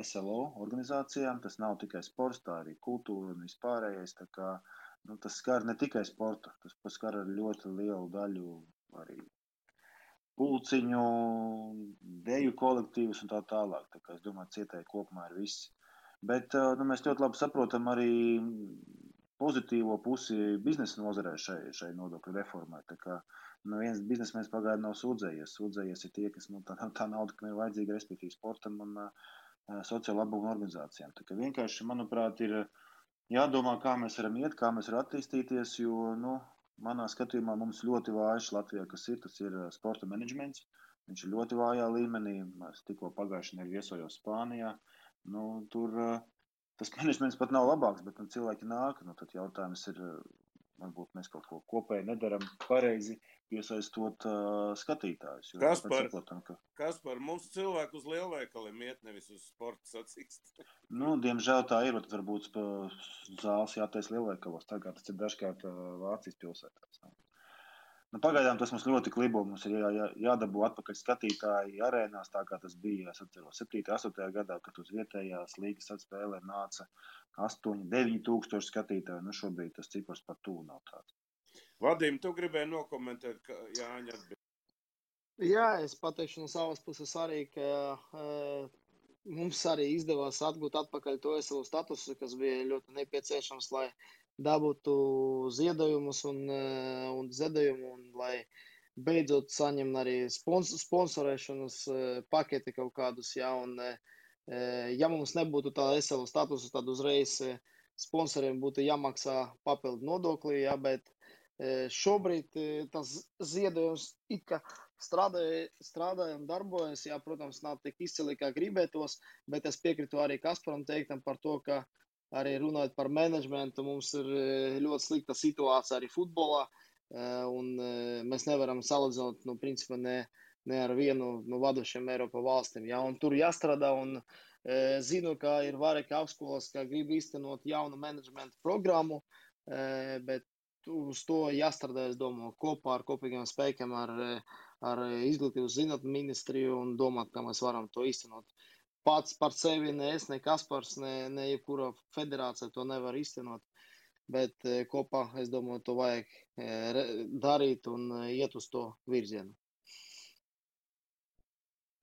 SLO organizācijām. Tas nav tikai sports, tā arī kultūra un vispārējais. Tā kā, tas skar ne tikai sportu, tas skar ar ļoti lielu daļu arī pulciņu, deju kolektīvus un tā tālāk. Tā kā es domāju, cietēji kopumā ir viss. Bet mēs ļoti labi saprotam arī pozitīvo pusi biznesa nozarē šai nodokļu reformai. Tā kā viens biznesmenis pagaidām nav sūdzējies. Sūdzējies ir tie, kas tā nauda, kam ir vajadzīga, respektīvi sportam un sociālo labumu organizācijām. Tā kā vienkārši, manuprāt, ir jādomā, kā mēs varam iet, kā mēs varam attīstīties, jo, manā skatījumā mums ļoti vājš Latvijā, tas ir sporta menedžments. Viņš ir ļoti vājā līmenī. Es tikko pagājušajā nedēļā viesojos Spānijā. Tur tas menedžments pat nav labāks, bet cilvēki nāk. Tad jautājums ir, varbūt mēs kaut ko kopēji nedaram pareizi, piesaistot skatītājus. Kaspar, mums cilvēku uz lielveikaliem iet, nevis uz sporta sacīkst. Diemžēl tā ir, bet varbūt zāles jātais lielveikalos, tā kā tas ir dažkārt Vācijas pilsētās. Pagaidām tas mums ļoti klibo, mums ir jādabū atpakaļ skatītāji arēnās, tā kā tas bija, es atceros, 7. 8. gadā, kad uz vietējās līgas atspēlē nāca 8-9 tūkstoši skatītāji. Šobrīd tas cipars par tuvu nav tāds. Vadim, tu gribēji nokomentēt, ka Jāņa atbild. Jā, es pateikšu no savas puses arī, ka mums arī izdevās atgūt atpakaļ to SLO statusu, kas bija ļoti nepieciešams, lai dabūtu ziedojumus un ziedojumu, un lai beidzot saņem arī sponsorēšanas paketi kaut kādus, jā, un ja mums nebūtu tā SLO statusu, tad uzreiz sponsoriem būtu jāmaksā papildu nodokli, jā, bet šobrīd tas ziedojums it kā strādājam, darbojas, jā, protams, nav tik izcili, kā gribētos, bet es piekritu arī Kasparam teiktam par to, ka arī runājot par menedžmentu, mums ir ļoti slikta situācija arī futbolā, un mēs nevaram salīdzināt, principā ne ar vienu no vadošiem Eiropas valstīm. Ja? Un tur jāstrādā, un zinu, ka ir vairāki augstskolas, ka grib īstenot jaunu menedžmentu programmu, bet uz to jāstrādā, es domāju, kopā ar kopīgiem spēkiem, ar izglītības zinātņu ministriju un domāt, kā mēs varam to īstenot. Pats par sevi ne es, ne Kaspars, ne jebkura federācija to nevar īstenot, bet kopā, es domāju, to vajag darīt un iet uz to virzienu.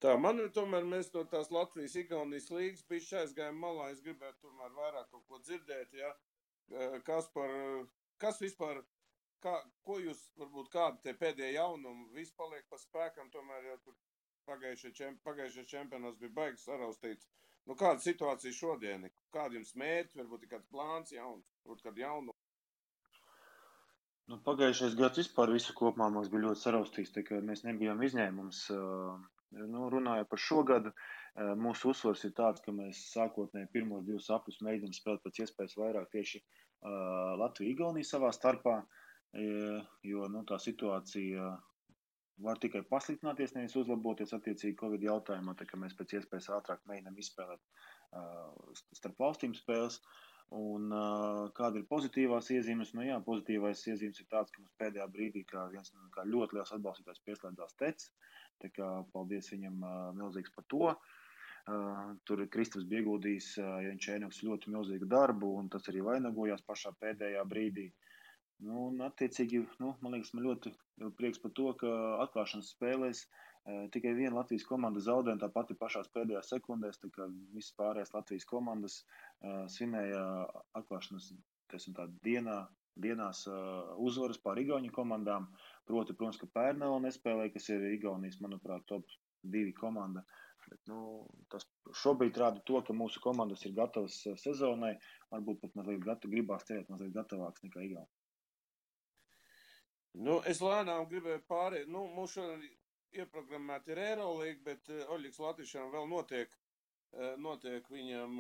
Tā, man tomēr mēs no tās Latvijas-Igaunijas līgas bišķi aizgājām malā, es gribētu tomēr vairāk kaut ko dzirdēt, ja? Kas vispār, ko jūs, varbūt kādi te pēdējie jaunumi, viss paliek pa spēkam, tomēr jau tur pagājušais čempionāts bija baigas saraustīts. Nu, kāda situācija šodien? Kādi jums mērķi, varbūt kāds plāns jauns, varbūt kādu jaunu? Nu, pagājušais gads vispār visu kopumā mums bija ļoti saraustīts, tā kā mēs nebijām izņēmums. Nu, runājot par šo gadu, mūsu uzsvars ir tāds, ka mēs sākotnēji pirmos 2 apļus mēģinām spēlēt pēc iespējas vairāk tieši Latviju-Igauniju savā starpā, jo nu, tā situācija var tikai pasliktināties, nevis uzlaboties attiecīgi Covid jautājumā, tā kā mēs pēc iespējas ātrāk mēģinām izspēlēt starp valstīm spēles. Un kāda ir pozitīvās iezīmes? Nu jā, pozitīvais iezīmes ir tāds, ka mums pēdējā brīdī kā ļoti liels atbalstītājs pieslēdzās Tec, tā kā paldies viņam milzīgs par to. Tur Kristaps bija ieguldījis Jančēnoks ļoti milzīgu darbu, un tas arī vainagojās pašā pēdējā brīdī. Nu, un attiecīgi, man liekas, man ļoti prieks par to, ka atklāšanas spēlēs tikai viena Latvijas komanda zaudēja, tā pati pašās pēdējās sekundēs, tā kā visas pārējās Latvijas komandas svinēja atklāšanas dienās uzvaras pār Igauņu komandām. Protams, ka Pērnela nespēlēja, kas ir Igaunijas, manuprāt, top 2 komanda. Bet, tas šobrīd rāda to, ka mūsu komandas ir gatavas sezonai, varbūt pat mazliet gribās cerēt mazliet gatavāks nekā Igauni. Es lēnām gribēju pārēt. Mums šodien ieprogrammēta ir Eirolīga, bet Oļģis Latvišam vēl notiek viņam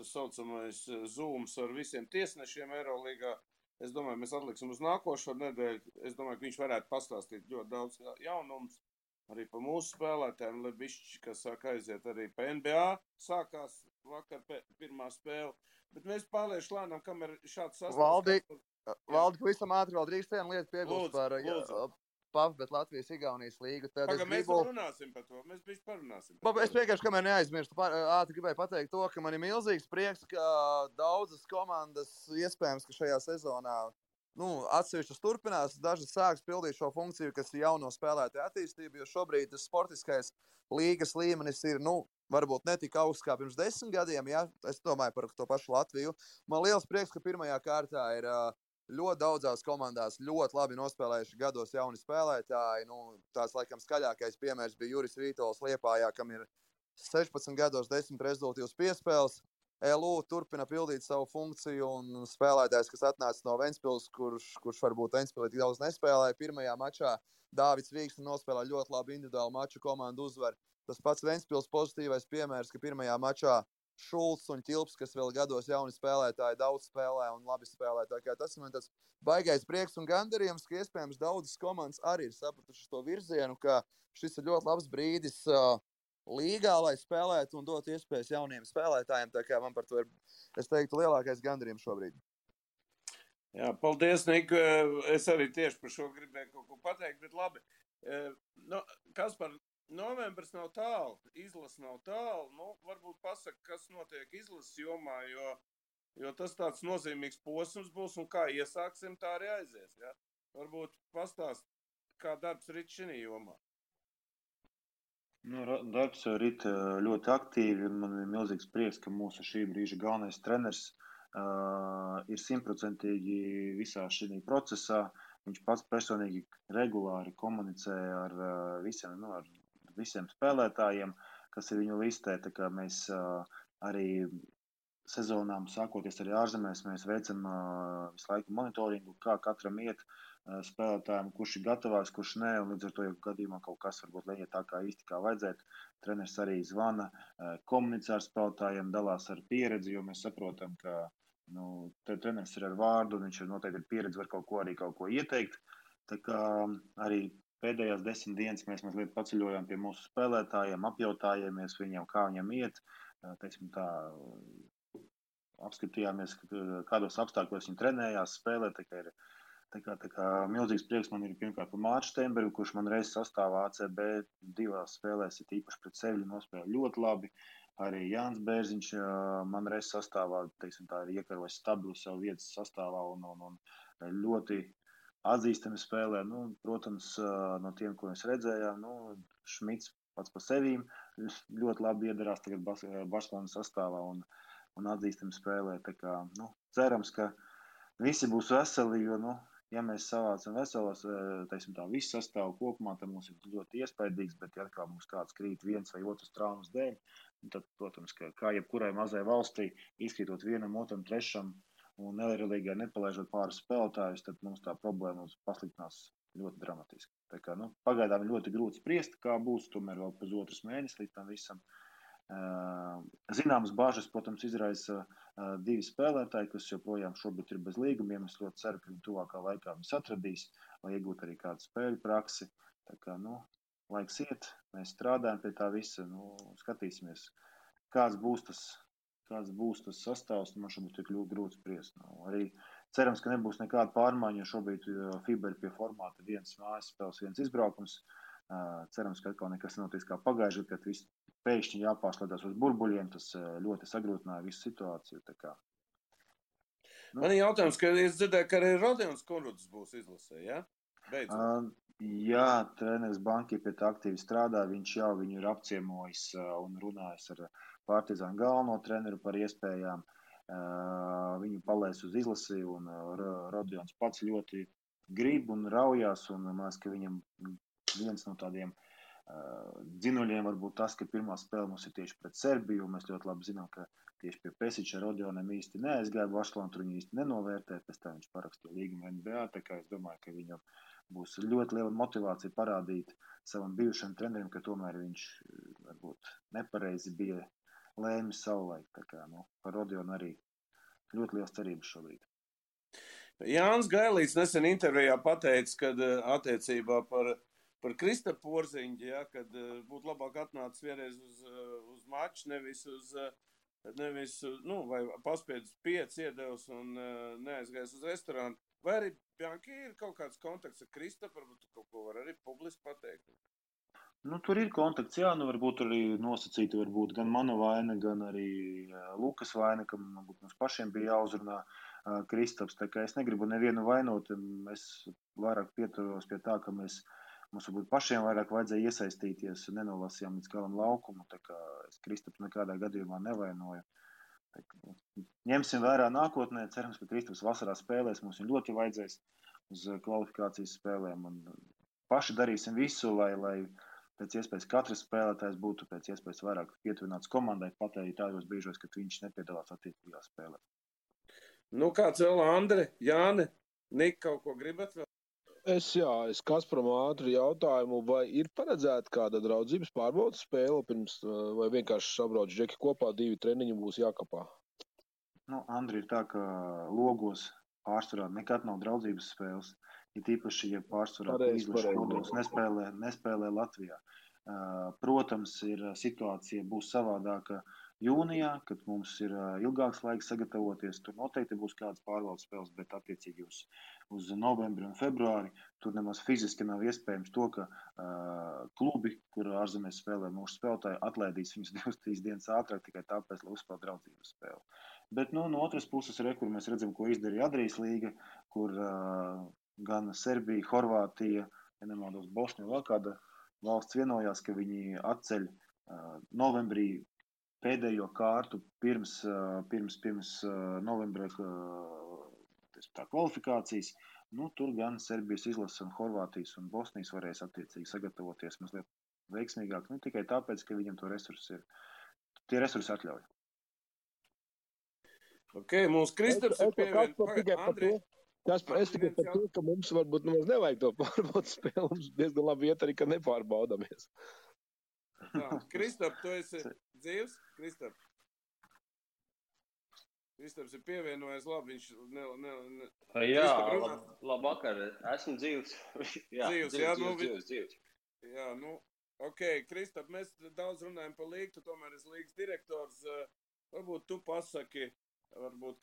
saucamais zooms ar visiem tiesnešiem Eirolīgā. Es domāju, mēs atliksim uz nākošo nedēļu. Es domāju, ka viņš varētu pastāstīt ļoti daudz jaunums arī par mūsu spēlētājiem. Lebišķi, kas sāk aiziet arī pa NBA, sākās vakar pirmā spēle. Bet mēs pārlieši lēnām, kamēr šāds sastāvs... Valdi, pavisam ātri vēl drīkst vienu lietu piebilst par PAF, bet Latvijas-Igaunijas līgu. Mēs runāsim par to, mēs bišķi parunāsim. Es vienkārši, kamēr neaizmirstu, ātri gribēju pateikt to, ka man ir milzīgs prieks, ka daudzas komandas iespējams, ka šajā sezonā atsevišķas turpinās, dažas sāks pildīt šo funkciju, kas ir jauno spēlētāju attīstība, jo šobrīd tas sportiskais līgas līmenis ir, varbūt ne tik augsts kā pirms 10 gadiem, ja? Es domāju par to pašu Latviju. Man liels prieks, ka pirmajā kārtā ir ļoti daudzās komandās ļoti labi nospēlējuši gados jauni spēlētāji. Tās laikam skaļākais piemērs bija Juris Vītols Liepājā, kam ir 16 gados 10 rezultātīvas piespēles. LU turpina pildīt savu funkciju, un spēlētājs, kas atnāca no Ventspils, kurš varbūt Ventspilī tik daudz nespēlēja, pirmajā mačā Dāvids Vīksne nospēlēja ļoti labu individuālu maču, komandu uzvaru. Tas pats Ventspils pozitīvais piemērs, ka pirmajā mačā Šulcs un Ķilps, kas vēl gados jauni spēlētāji, daudz spēlē un labi spēlē. Tas man tāds baigais prieks un gandarījums, ka iespējams daudzas komandas arī ir sapratušas to virzienu, ka šis ir ļoti labs brīdis līgā, lai spēlētu un dotu iespējas jauniem spēlētājiem. Tā kā man par to ir, es teiktu, lielākais gandarījums šobrīd. Jā, paldies, Nik. Es arī tieši par šo gribēju kaut ko pateikt, bet labi. Kaspar, novembris nav tālu, izlase nav tālu. Varbūt pasaka, kas notiek izlases jomā, jo tas tāds nozīmīgs posms būs un kā iesāksim, tā arī aizies. Ja? Varbūt pastāst, kā darbs rit šī jomā. Darbs rit ļoti aktīvi. Man ir milzīgs prieks, ka mūsu šī brīža galvenais treneris ir 100% visā šī procesā. Viņš pats personīgi regulāri komunicē ar visiem spēlētājiem, kas ir viņu listē. Tā kā mēs arī sezonām, sākoties arī ārzemēs, mēs veicam visu laiku monitoringu, kā katram iet spēlētājiem, kurš ir gatavāks, kurš nē, un līdz ar to, ja gadījumā kaut kas varbūt neiet tā kā īsti kā vajadzētu, treneris arī zvana, komunicē ar spēlētājiem, dalās ar pieredzi, jo mēs saprotam, ka treneris ir ar vārdu, un viņš ir noteikti pieredze, var kaut ko ieteikt. Tā kā arī pēdējās 10 dienas mēs mazliet paceļojām pie mūsu spēlētājiem, apjautājāmies viņiem, kā viņam iet, teiksim tā, apskatījāmies, kādos apstākļos viņi trenējās, spēlē, tā kā milzīgs prieks man ir pirmkārt par Mārtu Steinbergu, kurš man reiz sastāvā ACB 2 spēlēs, ir īpaši pret Sevļu nospēlē ļoti labi. Arī Jānis Bērziņš man reiz sastāvā, teiksim tā, ir iekarojis stabilu savu vietas sastāvā un ļoti atzīstami spēlē. Protams, no tiem, ko mēs redzējām, Šmits pats par sevīm ļoti labi iedarās tagad Barcelonas sastāvā un atzīstami spēlē. Tā kā, cerams, ka visi būs veseli, jo, ja mēs savācam veselos, teiksim tā, visu sastāvu kopumā, tad mums ir ļoti iespaidīgs, bet ja atkal mums kāds krīt viens vai otrs traumas dēļ, tad, protams, kā jebkurai mazai valstī, izkrītot vienam, otram, trešam un nelierīgai nepalaižot pāris spēlētājus, tad mums tā problēma pasliktinās ļoti dramatiski. Tā kā, pagaidām ir ļoti grūti spriest, kā būs, tomēr vēl pusotrs mēnesis līdz tam visam. Zināmas bāžas, protams, izraisa 2 spēlētāji, kas joprojām šobrīd ir bez līgumiem. Es ļoti ceru, ka viņi tuvākā laikā viņus atradīs, lai iegūtu arī kādu spēļu praksi. Tā kā, laiks iet, mēs strādājam pie tā visa, skatīsimies, kāds būs tas sastāvs, man šobrīd ir grūti spriest. Arī cerams, ka nebūs nekāda pārmaiņa, jo šobrīd FIBA ir pie formāta 1 mājas spēles, 1 izbraukums. Cerams, ka atkal nekas nenotiks kā pagājuši, kad viss pēkšņi jāpārslēdās uz burbuļiem, tas ļoti sagrūtināja visu situāciju. Tā kā. Man ir jautājums, ka es dzirdēju, ka arī Rodions Konruds būs izlasē, ja? Beidzot. Jā, treneris Banki pie tā aktīvi strādā, viņš jau viņu ir apciemojis un runājis ar Partizānu galveno treneru par iespējām. Viņu palaist uz izlasi, un Rodions pats ļoti grib un raujās, un man liekas, ka viņam viens no tādiem dzinuļiem varbūt tas, ka pirmā spēle mums ir tieši pret Serbiju, un mēs ļoti labi zinām, ka tieši pie Pesiča Rodionam īsti neaizgāja Barcelonu, tur viņu īsti nenovērtē, pēc tā viņš parakstīja līgumu NBA, tā kā es domāju, ka viņam būs ļoti liela motivācija parādīt savam bijušam trenerim, ka tomēr viņš varbūt nepareizi bija lēmis savulaik, tā kā, par Rodionu arī ļoti liels cerības šobrīd. Jānis Gailīts nesen intervijā pateica, kad attiecībā par Kristapu Porziņģi, ja, kad būtu labāk atnācis vienreiz uz maču, nevis vai paspiedus 5 iedevus un neaizgājis uz restorānu. Vai arī, Bjanki, ir kaut kāds kontakts ar Kristapu, varbūt kaut ko var arī publiski pateikt? Tur ir kontakts, jā, varbūt arī nosacīti, varbūt gan mana vaina, gan arī Lukas vaina, ka varbūt mums pašiem bija jāuzrunā Kristaps, tā kā es negribu nevienu vainot, es vairāk pieturos pie tā, ka mums varbūt pašiem vairāk vajadzēja iesaistīties, nenolasījām līdz galam laukumu, tā kā es Kristaps nekādā gadījumā nevainoju. Ņemsim vērā nākotnē, cerams, ka Kristaps vasarā spēlēs, mums viņu ļoti vajadzēs uz kvalifikācijas spēlēm, un paši darīsim visu, lai pēc iespējas katrs spēlētājs būtu pēc iespējas vairāk pietuvināts komandai, pat arī tādos brīžos, kad viņš nepiedalās attiecīgā spēlē. Kāds vēl, Andre, Jāne, Nika, kaut ko gribat vēl? Es Kasparam ātri jautājumu, vai ir paredzēta kāda draudzības pārbaudas spēle pirms, vai vienkārši sabrauc džeki kopā, 2 treniņi būs jākapā? Andri, ir tā, ka logos pārsvarā nekad nav draudzības spēles, ir tīpaši, ja pārsvarā izlašu kodols nespēlē Latvijā. Protams, situācija būs savādāka jūnijā, kad mums ir ilgāks laiks sagatavoties. Tur noteikti būs kādas pārbaudas spēles, bet attiecīgi uz novembri un februāri tur nemaz fiziski nav iespējams to, ka klubi, kur ārzemēs spēlē mūsu spēlētāji, atlaidīs viņus 2-3 dienas ātrāk tikai tāpēc, lai uzspēlētu draudzības spēli. Bet no otras puses, kur mēs redzam, ko izdarīja Adrijas līga, kur gan Serbija, Horvātija, ja nemaldos Bosnija, vēl kāda valsts vienojās, ka viņi atceļ novembrī pēdējo kārtu pirms novembra kvalifikācijas. Tur gan Serbijas izlases un Horvātijas un Bosnijas varēs attiecīgi sagatavoties mazliet veiksmīgāk. Ne tikai tāpēc, ka viņam tie resursi atļauj. Mūsu Kristaps ir pievienot. Es tikai par to, ka mums varbūt nevajag to pārbaudas spēli, mums diezgan labi iet arī, ka nepārbaudamies. Kristap, tu esi dzīvs? Kristap. Kristaps ir pievienojies, labi, viņš Jā, Kristap runā. labvakar, esmu dzīvs. Dzīvs. Jā, nu, ok, Kristap, mēs daudz runājam par līgu, tu tomēr esi līgas direktors. Varbūt tu pasaki,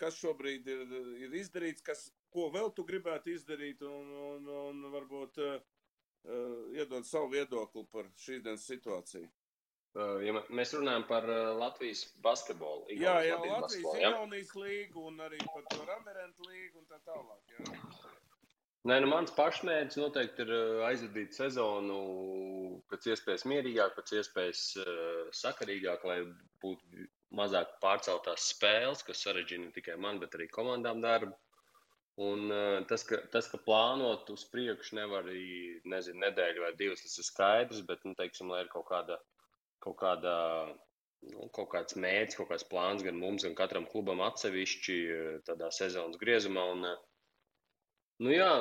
kas šobrīd ir izdarīts, ko vēl tu gribētu izdarīt un varbūt iedod savu viedokli par šīs dienas situāciju. Ja mēs runājam par Latvijas basketbolu. Jā, Latvijas Igaunijas līgu un arī par to Ramirentu līgu un tā tālāk, jā. Nē, mans pašmērķis noteikti ir aizvadīt sezonu pēc iespējas mierīgāk, pēc iespējas sakarīgāk, lai būtu mazāk pārceltās spēles, kas sarežģīja ne tikai man, bet arī komandām darbu. Un tas, ka plānot uz priekšu nevar arī, nedēļu vai divas, tas ir skaidrs, bet, teiksim, lai ir kaut kāds mērķis, kaut kāds plāns gan mums, gan katram klubam atsevišķi tādā sezonas griezumā. Un, jā,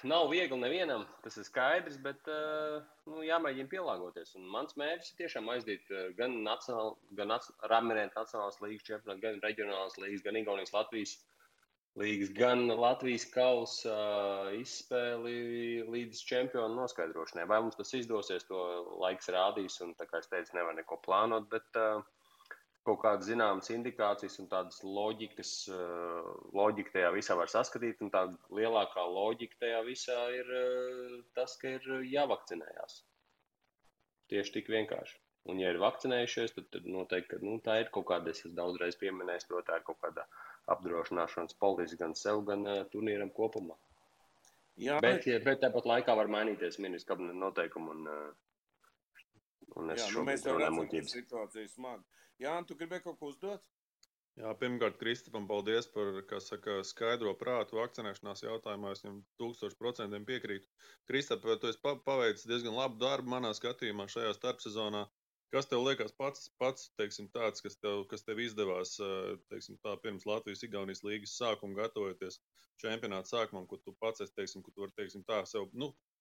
nav viegli nevienam, tas ir skaidrs, bet jāmēģina pielāgoties. Un mans mērķis ir tiešām aizdīt gan Ramirentu nacionālās līgas čempionātu, gan reģionālās līgas, gan Igaunijas Latvijas līgas, gan Latvijas kausa izspēli līdz čempionu noskaidrošanai. Vai mums tas izdosies, to laiks rādīs, un tā kā es teicu, nevar neko plānot, bet kaut kādas zināmas indikācijas un tādas loģika tajā visā var saskatīt, un tā lielākā loģika tajā visā ir tas, ka ir jāvakcinējās. Tieši tik vienkārši. Un ja ir vakcinējušies, tad noteikti, ka tā ir kaut kāda, es daudzreiz pieminēju, to tā ir kaut kāda apdrošināšanas politika gan sev, gan turnīram kopumā. Jā, bet tāpat laikā var mainīties ministrs kabineta noteikumi un es mēs jau redzam, ka situācija smagi. Jā, tu gribēji kaut ko uzdot? Jā, pirmkārt, Kristapam, paldies par, skaidro prātu vakcinēšanās jautājumā. Es viņam 1000% piekrītu. Kristap, tu esi paveicis diezgan labu darbu manā skatījumā šajā starpsezonā. Kas tev liekas pats teiksim, tāds, kas tev izdevās teiksim, tā, pirms Latvijas-Igaunijas līgas sākuma gatavoties čempionāta sākumam, ko tu pats esi, teiksim, ko tu vari teiksim, tā sev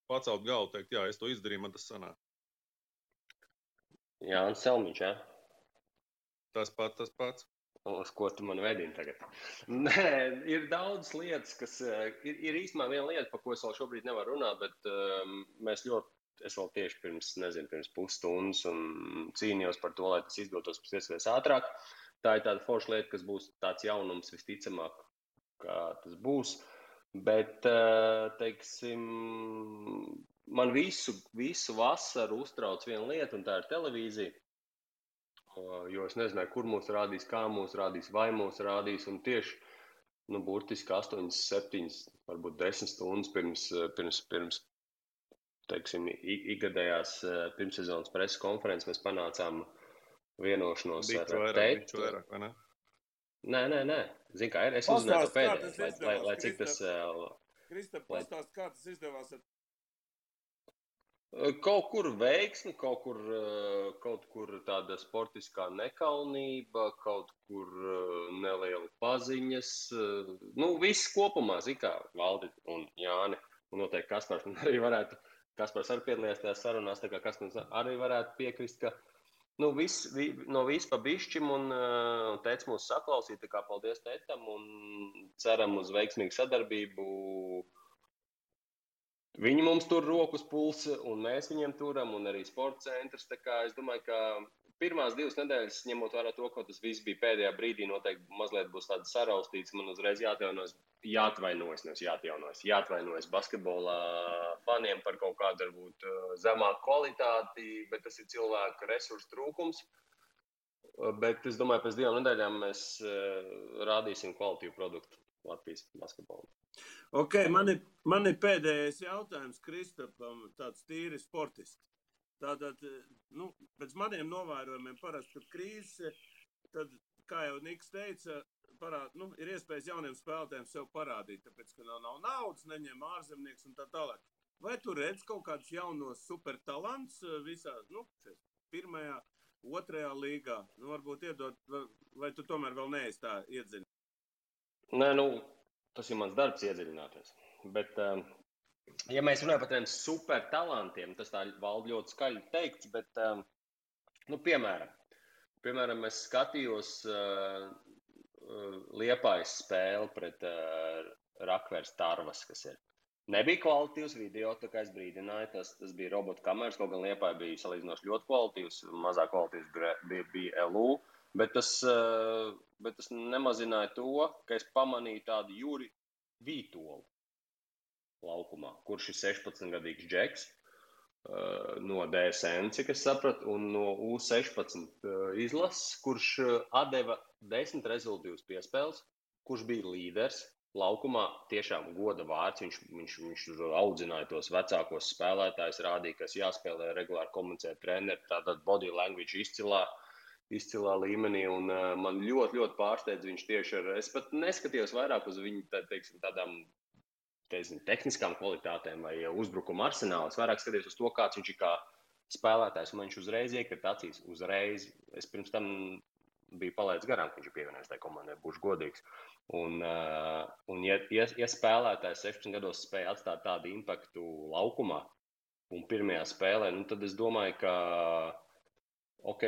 pacelt galvu, teikt, jā, es to izdarīju, man tas sanāk. Jānis Selmiņš, jā? Tas pats. Uz ko tu man vedini tagad? Nē, ir daudz lietas, kas ir īstenībā viena lieta, par ko es vēl šobrīd nevaru runāt, bet es vēl tieši pirms pusstundas un cīnījos par to, lai tas izdotos pēc iespējas ātrāk. Tā ir tāda forša lieta, kas būs tāds jaunums visticamāk, kā tas būs. Bet, teiksim, man visu vasaru uztrauc viena lieta, un tā ir televīzija. Jo es nezināju, kur mūs rādīs, kā mūs rādīs, vai mūs rādīs. Un tieši, burtiski 8, 7, varbūt 10 stundas pirms teiksim, ikgadējās pirmssezonas preses konferences mēs panācām vienošanos ar teitu. Biču vairāk, vai ne? Nē. Zini, kā ir? Es uzzināju to pēdējais, lai cik tas... Kristap, pastāst, kā tas izdevās ar... Kaut kur veiksmi, kaut kur tāda sportiskā nekaunība, kaut kur neliela paziņas. Viss kopumā, kā Valdi un Jāni, un noteikti Kaspars arī varētu, Kaspars arī piedalījās tajās sarunās, tā kā Kaspars arī varētu piekrist, ka no viss pa bišķim un teica mūs saklausīt, tā kā paldies tētam un ceram uz veiksmīgu sadarbību. Viņi mums tur rokas pulsa, un mēs viņiem turam, un arī sporta centrs. Tā kā es domāju, ka pirmās 2 nedēļas, ņemot vērā to, ka tas viss bija pēdējā brīdī, noteikti mazliet būs tāds saraustīts. Man uzreiz jāatvainojas basketbolā faniem par kaut kādu, varbūt, zemāku kvalitāti, bet tas ir cilvēku resursu trūkums. Bet es domāju, pēc 2 nedēļām mēs rādīsim kvalitīvu produktu Latvijas basketbolam. Ok, man ir pēdējais jautājums Kristapam, tāds tīri sportiski. Tātad, pēc maniem novērojumiem parasti, kad krīze, tad, kā jau Niks teica, ir iespējas jauniem spēlētājiem sev parādīt, tāpēc, ka nav naudas, neņem ārzemnieks un tā tālāk. Vai tu redz kaut kādus jaunos supertalants visā, pirmajā, otrajā līgā? Varbūt iedot, vai tu tomēr vēl neesi tā iedziļināts? Nē, tas ir mans darbs iedziļināties. Bet, ja mēs runājam par tiem supertalantiem, tas tā Valdi ļoti skaļi teikts, bet, piemēram, es skatījos Liepājas spēli pret Rakvers Tarvas, kas ir. Nebija kvalitīvs video, tā kā es brīdināju, tas bija robotu kameras, kaut gan Liepāja bija salīdzinoši ļoti kvalitīvs, mazāk kvalitīvs bija LU, bet tas nemazināja to, ka es pamanīju tādu Juri Vītolu laukumā, kurš ir 16-gadīgs džeks no DSN, cik es sapratu, un no U16 izlases, kurš atdeva 10 rezultīvas piespēles, kurš bija līderis laukumā, tiešām goda vārds, viņš audzināja tos vecākos spēlētājus, rādīja, kas jāspēlē regulāri komunicēt treneri, tātad body language izcilā līmenī, un man ļoti, ļoti pārsteidz viņš tieši es pat neskatījos vairāk uz viņu, teiksim, tādām tehniskām kvalitātēm vai uzbrukuma arsenālu. Es vairāk skatījos uz to, kāds viņš ir kā spēlētājs, un viņš uzreiz iekrita acīs. Uzreiz. Es pirms tam biju palaidis garām, ka viņš ir pievienojies tai komandai, būšu godīgs. Un ja spēlētājs 16 gados spēja atstāt tādu impaktu laukumā un pirmajā spēlē, tad es domāju, ka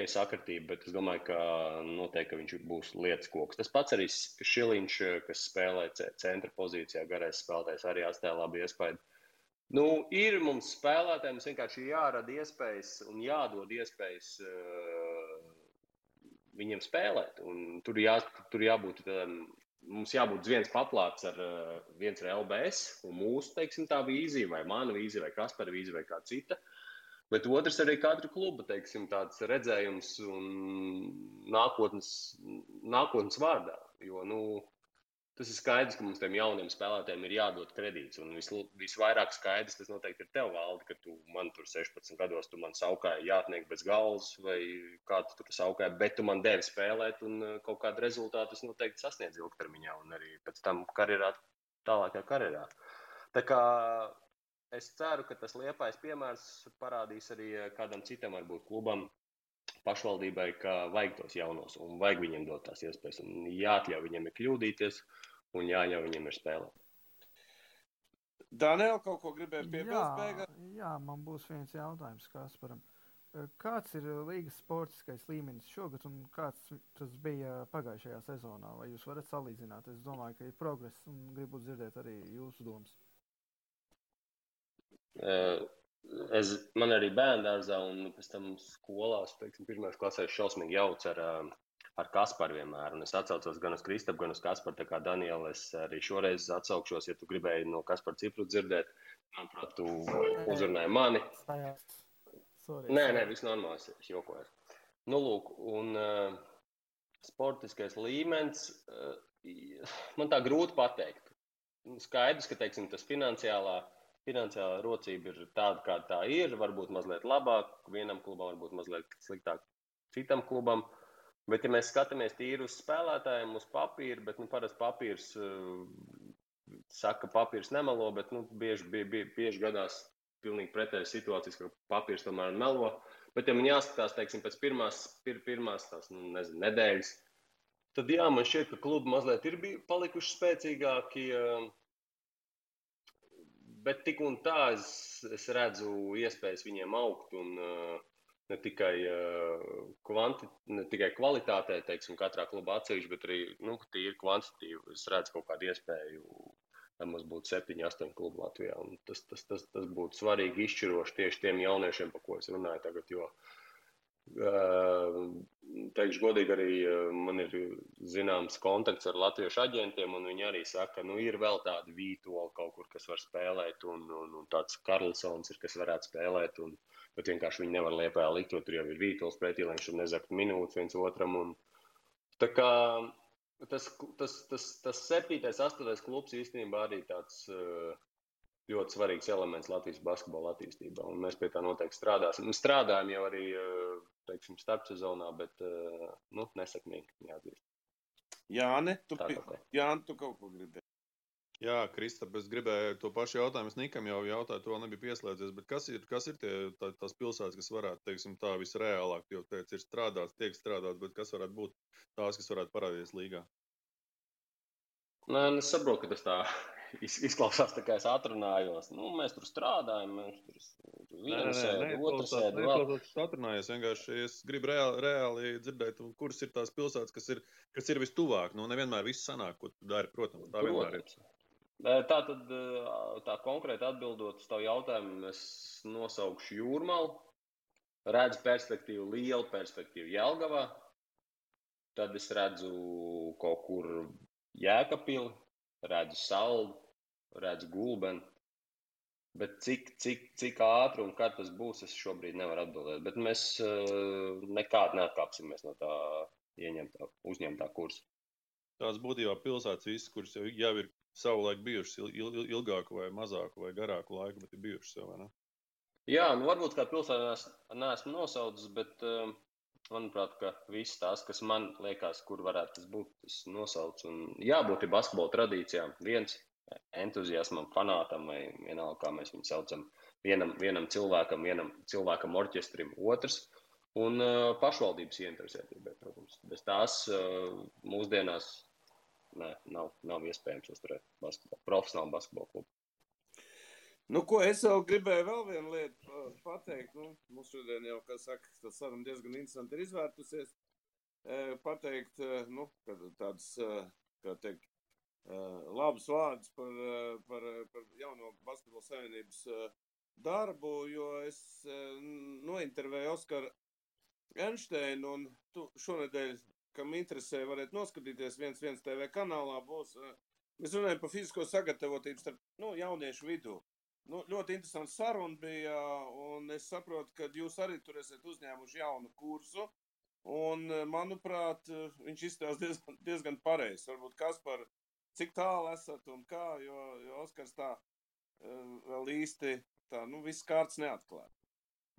sakritība, bet es domāju, ka noteikti ka viņš būs lietas koks. Tas pats arī Šiliņš, kas spēlē centra pozīcijā, garais spēlētājs, arī atstāja labu iespēju. Ir mums spēlētājiem, mums vienkārši jārada iespējas un jādod iespējas viņiem spēlēt. Un tur jābūt, mums jābūt viens paplāts ar LBS un mūsu, teiksim, tā vīzija, vai mana vīzija, vai Kaspara vīzija, vai kā cita. Bet otrs arī katra kluba, teiksim, tāds redzējums un nākotnes vārdā. Jo, tas ir skaidrs, ka mums tiem jauniem spēlētājiem ir jādod kredīts. Un visvairāk skaidrs, tas noteikti ir tev, Valdi, ka tu man tur 16 gados, tu man saukāji jātniek bez galvas, vai kā tu tur saukāji, bet tu man devi spēlēt, un kaut kādu rezultātu es noteikti sasniedzu ilgtermiņā, un arī pēc tam tālākajā karjerā. Tā kā es ceru, ka tas Liepājas piemērs parādīs arī kādam citam, varbūt klubam, pašvaldībai, ka vajag tos jaunos un vajag viņiem dot tās iespējas. Un jāatļauj viņiem ir kļūdīties un jāļauj viņiem ir spēlēt. Daniel, kaut ko gribēja piebilst beigās? Jā, man būs viens jautājums Kasparam. Kāds ir līgas sportiskais līmenis šogad un kāds tas bija pagājušajā sezonā? Vai jūs varat salīdzināt? Es domāju, ka ir progress un gribu dzirdēt arī jūsu domas. Man arī bērndārzā un pēc tam skolās, teiksim, pirmās klasēs šausmīgi jauc ar Kasparu vienmēr. Un es atsaucos gan uz Kristapu, gan uz Kasparu, tā kā Daniela, es arī šoreiz atsaukšos, ja tu gribēji no Kaspara cipru dzirdēt. Manuprāt, tu uzrunāji mani. Nē, viss normāls, es jokoju. Lūk, un sportiskais līmenis, man tā grūti pateikt. Skaidrs, ka, teiksim, tas finansiālā rocība ir tāda, kā tā ir, varbūt mazliet labāk, vienam klubam, varbūt mazliet sliktāk citam klubam. Bet, ja mēs skatāmies tīri uz spēlētājiem, uz papīru, bet parasti papīrs saka, ka papīrs nemelo, bet bieži gadās pilnīgi pretējas situācijas, ka papīrs tomēr melo. Bet, ja man jāskatās, teiksim, pēc pirmās tās, nedēļas, tad jā, man šķiet, ka klubi mazliet ir palikuši spēcīgāki. Bet tik un tā es redzu iespējas viņiem augt un ne tikai kvalitātē, teiksim, katrā klubā atsevišķi, bet arī tīri kvantitatīvi. Es redzu kaut kādu iespēju, lai mums būtu 7-8 klubu Latvijā. Un tas būtu svarīgi izšķiroši tieši tiem jauniešiem, par ko es runāju tagad, jo teikšu godīgi, arī man ir zināms kontakts ar latviešu aģentiem, un viņi arī saka, ka ir vēl tādi Vītoli kaut kur, kas var spēlēt, un tāds Karlsons ir, kas varētu spēlēt, bet vienkārši viņi nevar Liepājā likt, jo tur jau ir Vītols pretī, lai viņš tur nezakt minūtes viens otram. Tā kā tas 7. 8. klubs īstenībā arī tāds ļoti svarīgs elements Latvijas basketbola attīstībā, un mēs pie tā noteikti strādāsim. Mēs strādājam jau arī, teiksim, starpsezonā, bet nesekmīgi, jāatzīst. Jāni, tu kaut ko gribēji? Jā, Kristap, es gribēju to pašu jautājumu. Es Nikam jau jautāju, to nebija pieslēdzies, bet kas ir tās pilsētas, kas varētu, teiksim, tā visreālāk, jo teic, ir strādāts, tiek strādāts, bet kas varētu būt tās, kas varētu parādīties līgā? Es saprotu, ka tas tā izklausās tā, kā es atrunājos. Nu, mēs tur strādājam, mēs tur vienu sēdu, otru sēdu vēl. Neizklausās, ka atrunājies. Vienkārši es gribu reāli dzirdēt, kuras ir tās pilsētas, kas ir vistuvāk. Nu, nevienmēr viss sanāk, ko tu dari, protams. Tā vienmēr ir. Tātad, tā konkrēti atbildot uz tavu jautājumu, es nosaukšu Jūrmalu, redzu perspektīvu, lielu perspektīvu Jelgavā, tad es redzu kaut kur Jēkabpili, redzu Saldu, redzu Gulbeni, bet cik ātri un kad tas būs, es šobrīd nevaru atbildēt, bet mēs nekādi neatkāpsimies no tā uzņemtā kursa. Tās būtībā pilsētas visas, kuras jau ir savulaik bijušas ilgāku vai mazāku vai garāku laiku, bet ir bijušas jau, vai ne? Jā, nu varbūt kā pilsētā neesmu nosaucis, bet manuprāt, ka viss tās, kas man liekas, kur varētu tas būt, tas nosauc. Un jābūt ir basketbola tradīcijām. Viens entuziasmam, fanātam vai vienalga, kā mēs viņu saucam, vienam cilvēkam orķestrim, otrs. Un pašvaldības ieinteresētībai, protams. Bez tās mūsdienās nav iespējams uzturēt profesionālu basketbolu klubu. Nu, ko es vēl gribēju vēl vienu lietu pateikt. Nu, mums šodien jau, kā saka, tas saruna diezgan interesanti ir izvērtusies. Pateikt, nu, tāds, kā teikt, labus vārdus par jauno basketbola savienības darbu, jo es nointervēju Oskaru Enšteinu, un tu šonedēļ, kam interesē, varētu noskatīties 1 TV kanālā, būs, mēs runājam par fizisko sagatavotību starp jauniešu vidū. Nu, ļoti interesants saruna bija, un es saprotu, ka jūs arī tur esat uzņēmuši jaunu kursu, un, manuprāt, viņš izstāsta diezgan pareizi. Varbūt Kaspar, cik tālu esat un kā, jo Oskars tā vēl īsti tā, viss kārts neatklāt.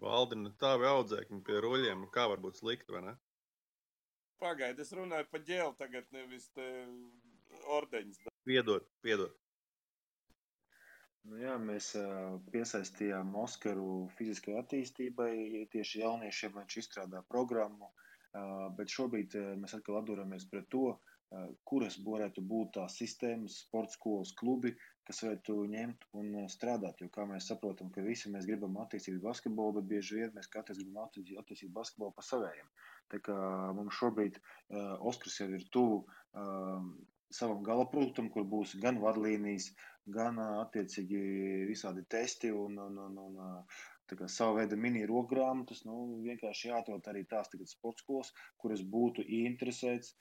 Valdina, tāvi audzēkņi pie ruļiem, kā var būt slikti, vai ne? Pagaid, es runāju pa ģēlu tagad, nevis te ordeņas. Piedod. Nu jā, mēs piesaistījām Oskaru fiziskai attīstībai, tieši jauniešiem, lai viņš izstrādā programmu, bet šobrīd mēs atkal atduramies pret to, kuras varētu būt tās sistēmas, sporta skolas klubi, kas varētu ņemt un strādāt, jo kā mēs saprotam, ka visi mēs gribam attīstīt basketbolu, bet bieži vien mēs katrs gribam attīstīt basketbolu pa savējiem. Tā kā mums šobrīd Oskars jau ir tuvu savam galaproduktam, kur būs gan vadlīnijas, gan attiecīgi visādi testi un tā kā sava veida mini rokgrāmatas, vienkārši jāatrod arī tās tagad sporta skolas, kuras būtu ieinteresēts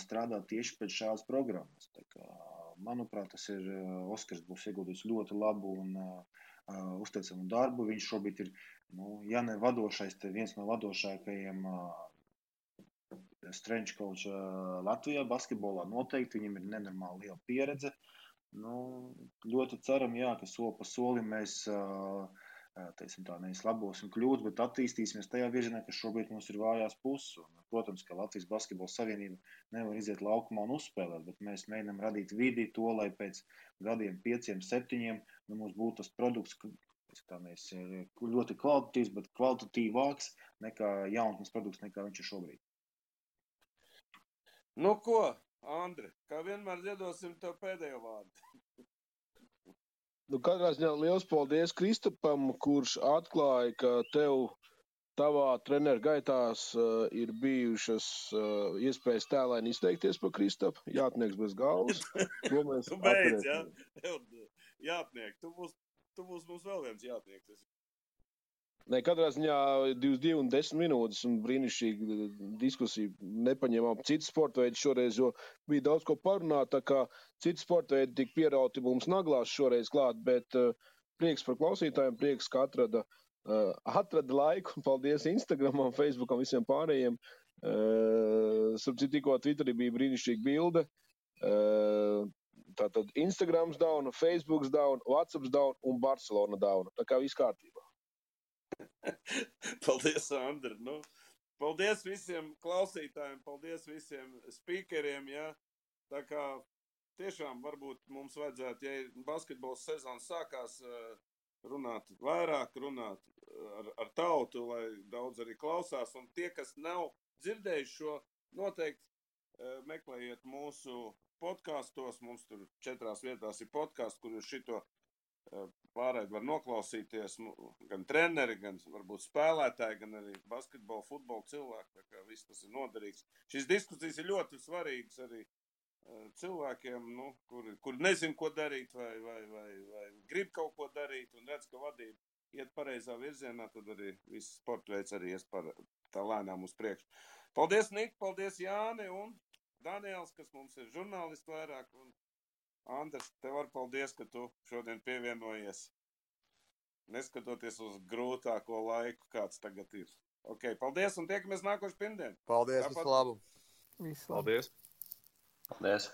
strādāt tieši pēc šādas programmas. Tā kā, manuprāt, tas ir Oskars būs ieguldījis ļoti labu un uzteicamu darbu. Viņš šobrīd ir, ja ne vadošais, te viens no vadošākajiem strength coach Latvijā basketbolā noteikti. Viņam ir nenormāli liela pieredze. Ļoti ceram, ka soli pa solim mēs teiksim tā, nevis labosim kļūdas, bet attīstīsimies tajā virzienā, ka šobrīd mums ir vājās puses. Un, protams, ka Latvijas basketbola savienība nevar iziet laukumā un uzspēlēt, bet mēs mēģinām radīt vidi to, lai pēc gadiem 5, 7 mums būtu tas produkts, mēs ir ļoti kvalitatīvs, bet kvalitatīvāks nekā jaunatnes produkts, nekā viņš ir šobrīd. Nu ko, Andri, kā vienmēr ziedosim tev pēdējo vārdu. Katrā ziņā liels paldies Kristapam, kurš atklāja, ka tev tavā treneru gaitās ir bijušas iespējas tēlaini izteikties par Kristapu. Jātnieks bez galvas. Tu beidz, ja? Jātniek, tu būs mums vēl viens jātnieks. Katrā ziņā 22 un 10 minūtes un brīnišķīga diskusija. Nepaņēmām citu sporta veidu šoreiz, jo bija daudz ko parunāt, tā kā citu sporta veidu tik pierauti mums naglās šoreiz klāt, bet prieks par klausītājiem, prieks, ka atrada laiku. Paldies Instagramam, Facebookam, visiem pārējiem. Tikko Twitterī bija brīnišķīga bilde. Tātad Instagrams down, Facebooks down, Whatsapps down un Barcelona down. Tā kā viss kārtībā. Paldies, Andri. Paldies visiem klausītājiem, paldies visiem speakeriem. Ja? Tā kā tiešām varbūt mums vajadzētu, ja basketbols sezonas sākās, runāt vairāk, runāt ar tautu, lai daudz arī klausās. Un tie, kas nav dzirdējuši šo, noteikti meklējiet mūsu podkastos. Mums tur 4 vietās ir podkāsts, kur jūs šito pārēd var noklausīties. Gan treneri, gan varbūt spēlētāji, gan arī basketbola, futbola cilvēki. Tā kā viss tas ir noderīgs. Šīs diskusijas ir ļoti svarīgas arī cilvēkiem, kur nezin, ko darīt vai grib kaut ko darīt un redz, ka vadība iet pareizā virzienā, tad arī viss sporta veids arī ies tā lēnām uz priekšu. Paldies, Nik, paldies, Jāni un Daniels, kas mums ir žurnālisti vairāk. Un Andrs, tev var paldies, ka tu šodien pievienojies, neskatoties uz grūtāko laiku, kāds tagad ir. Ok, paldies un tiekamies nākošu pirmdien. Paldies, visu labu. Visu labu. Paldies. Paldies.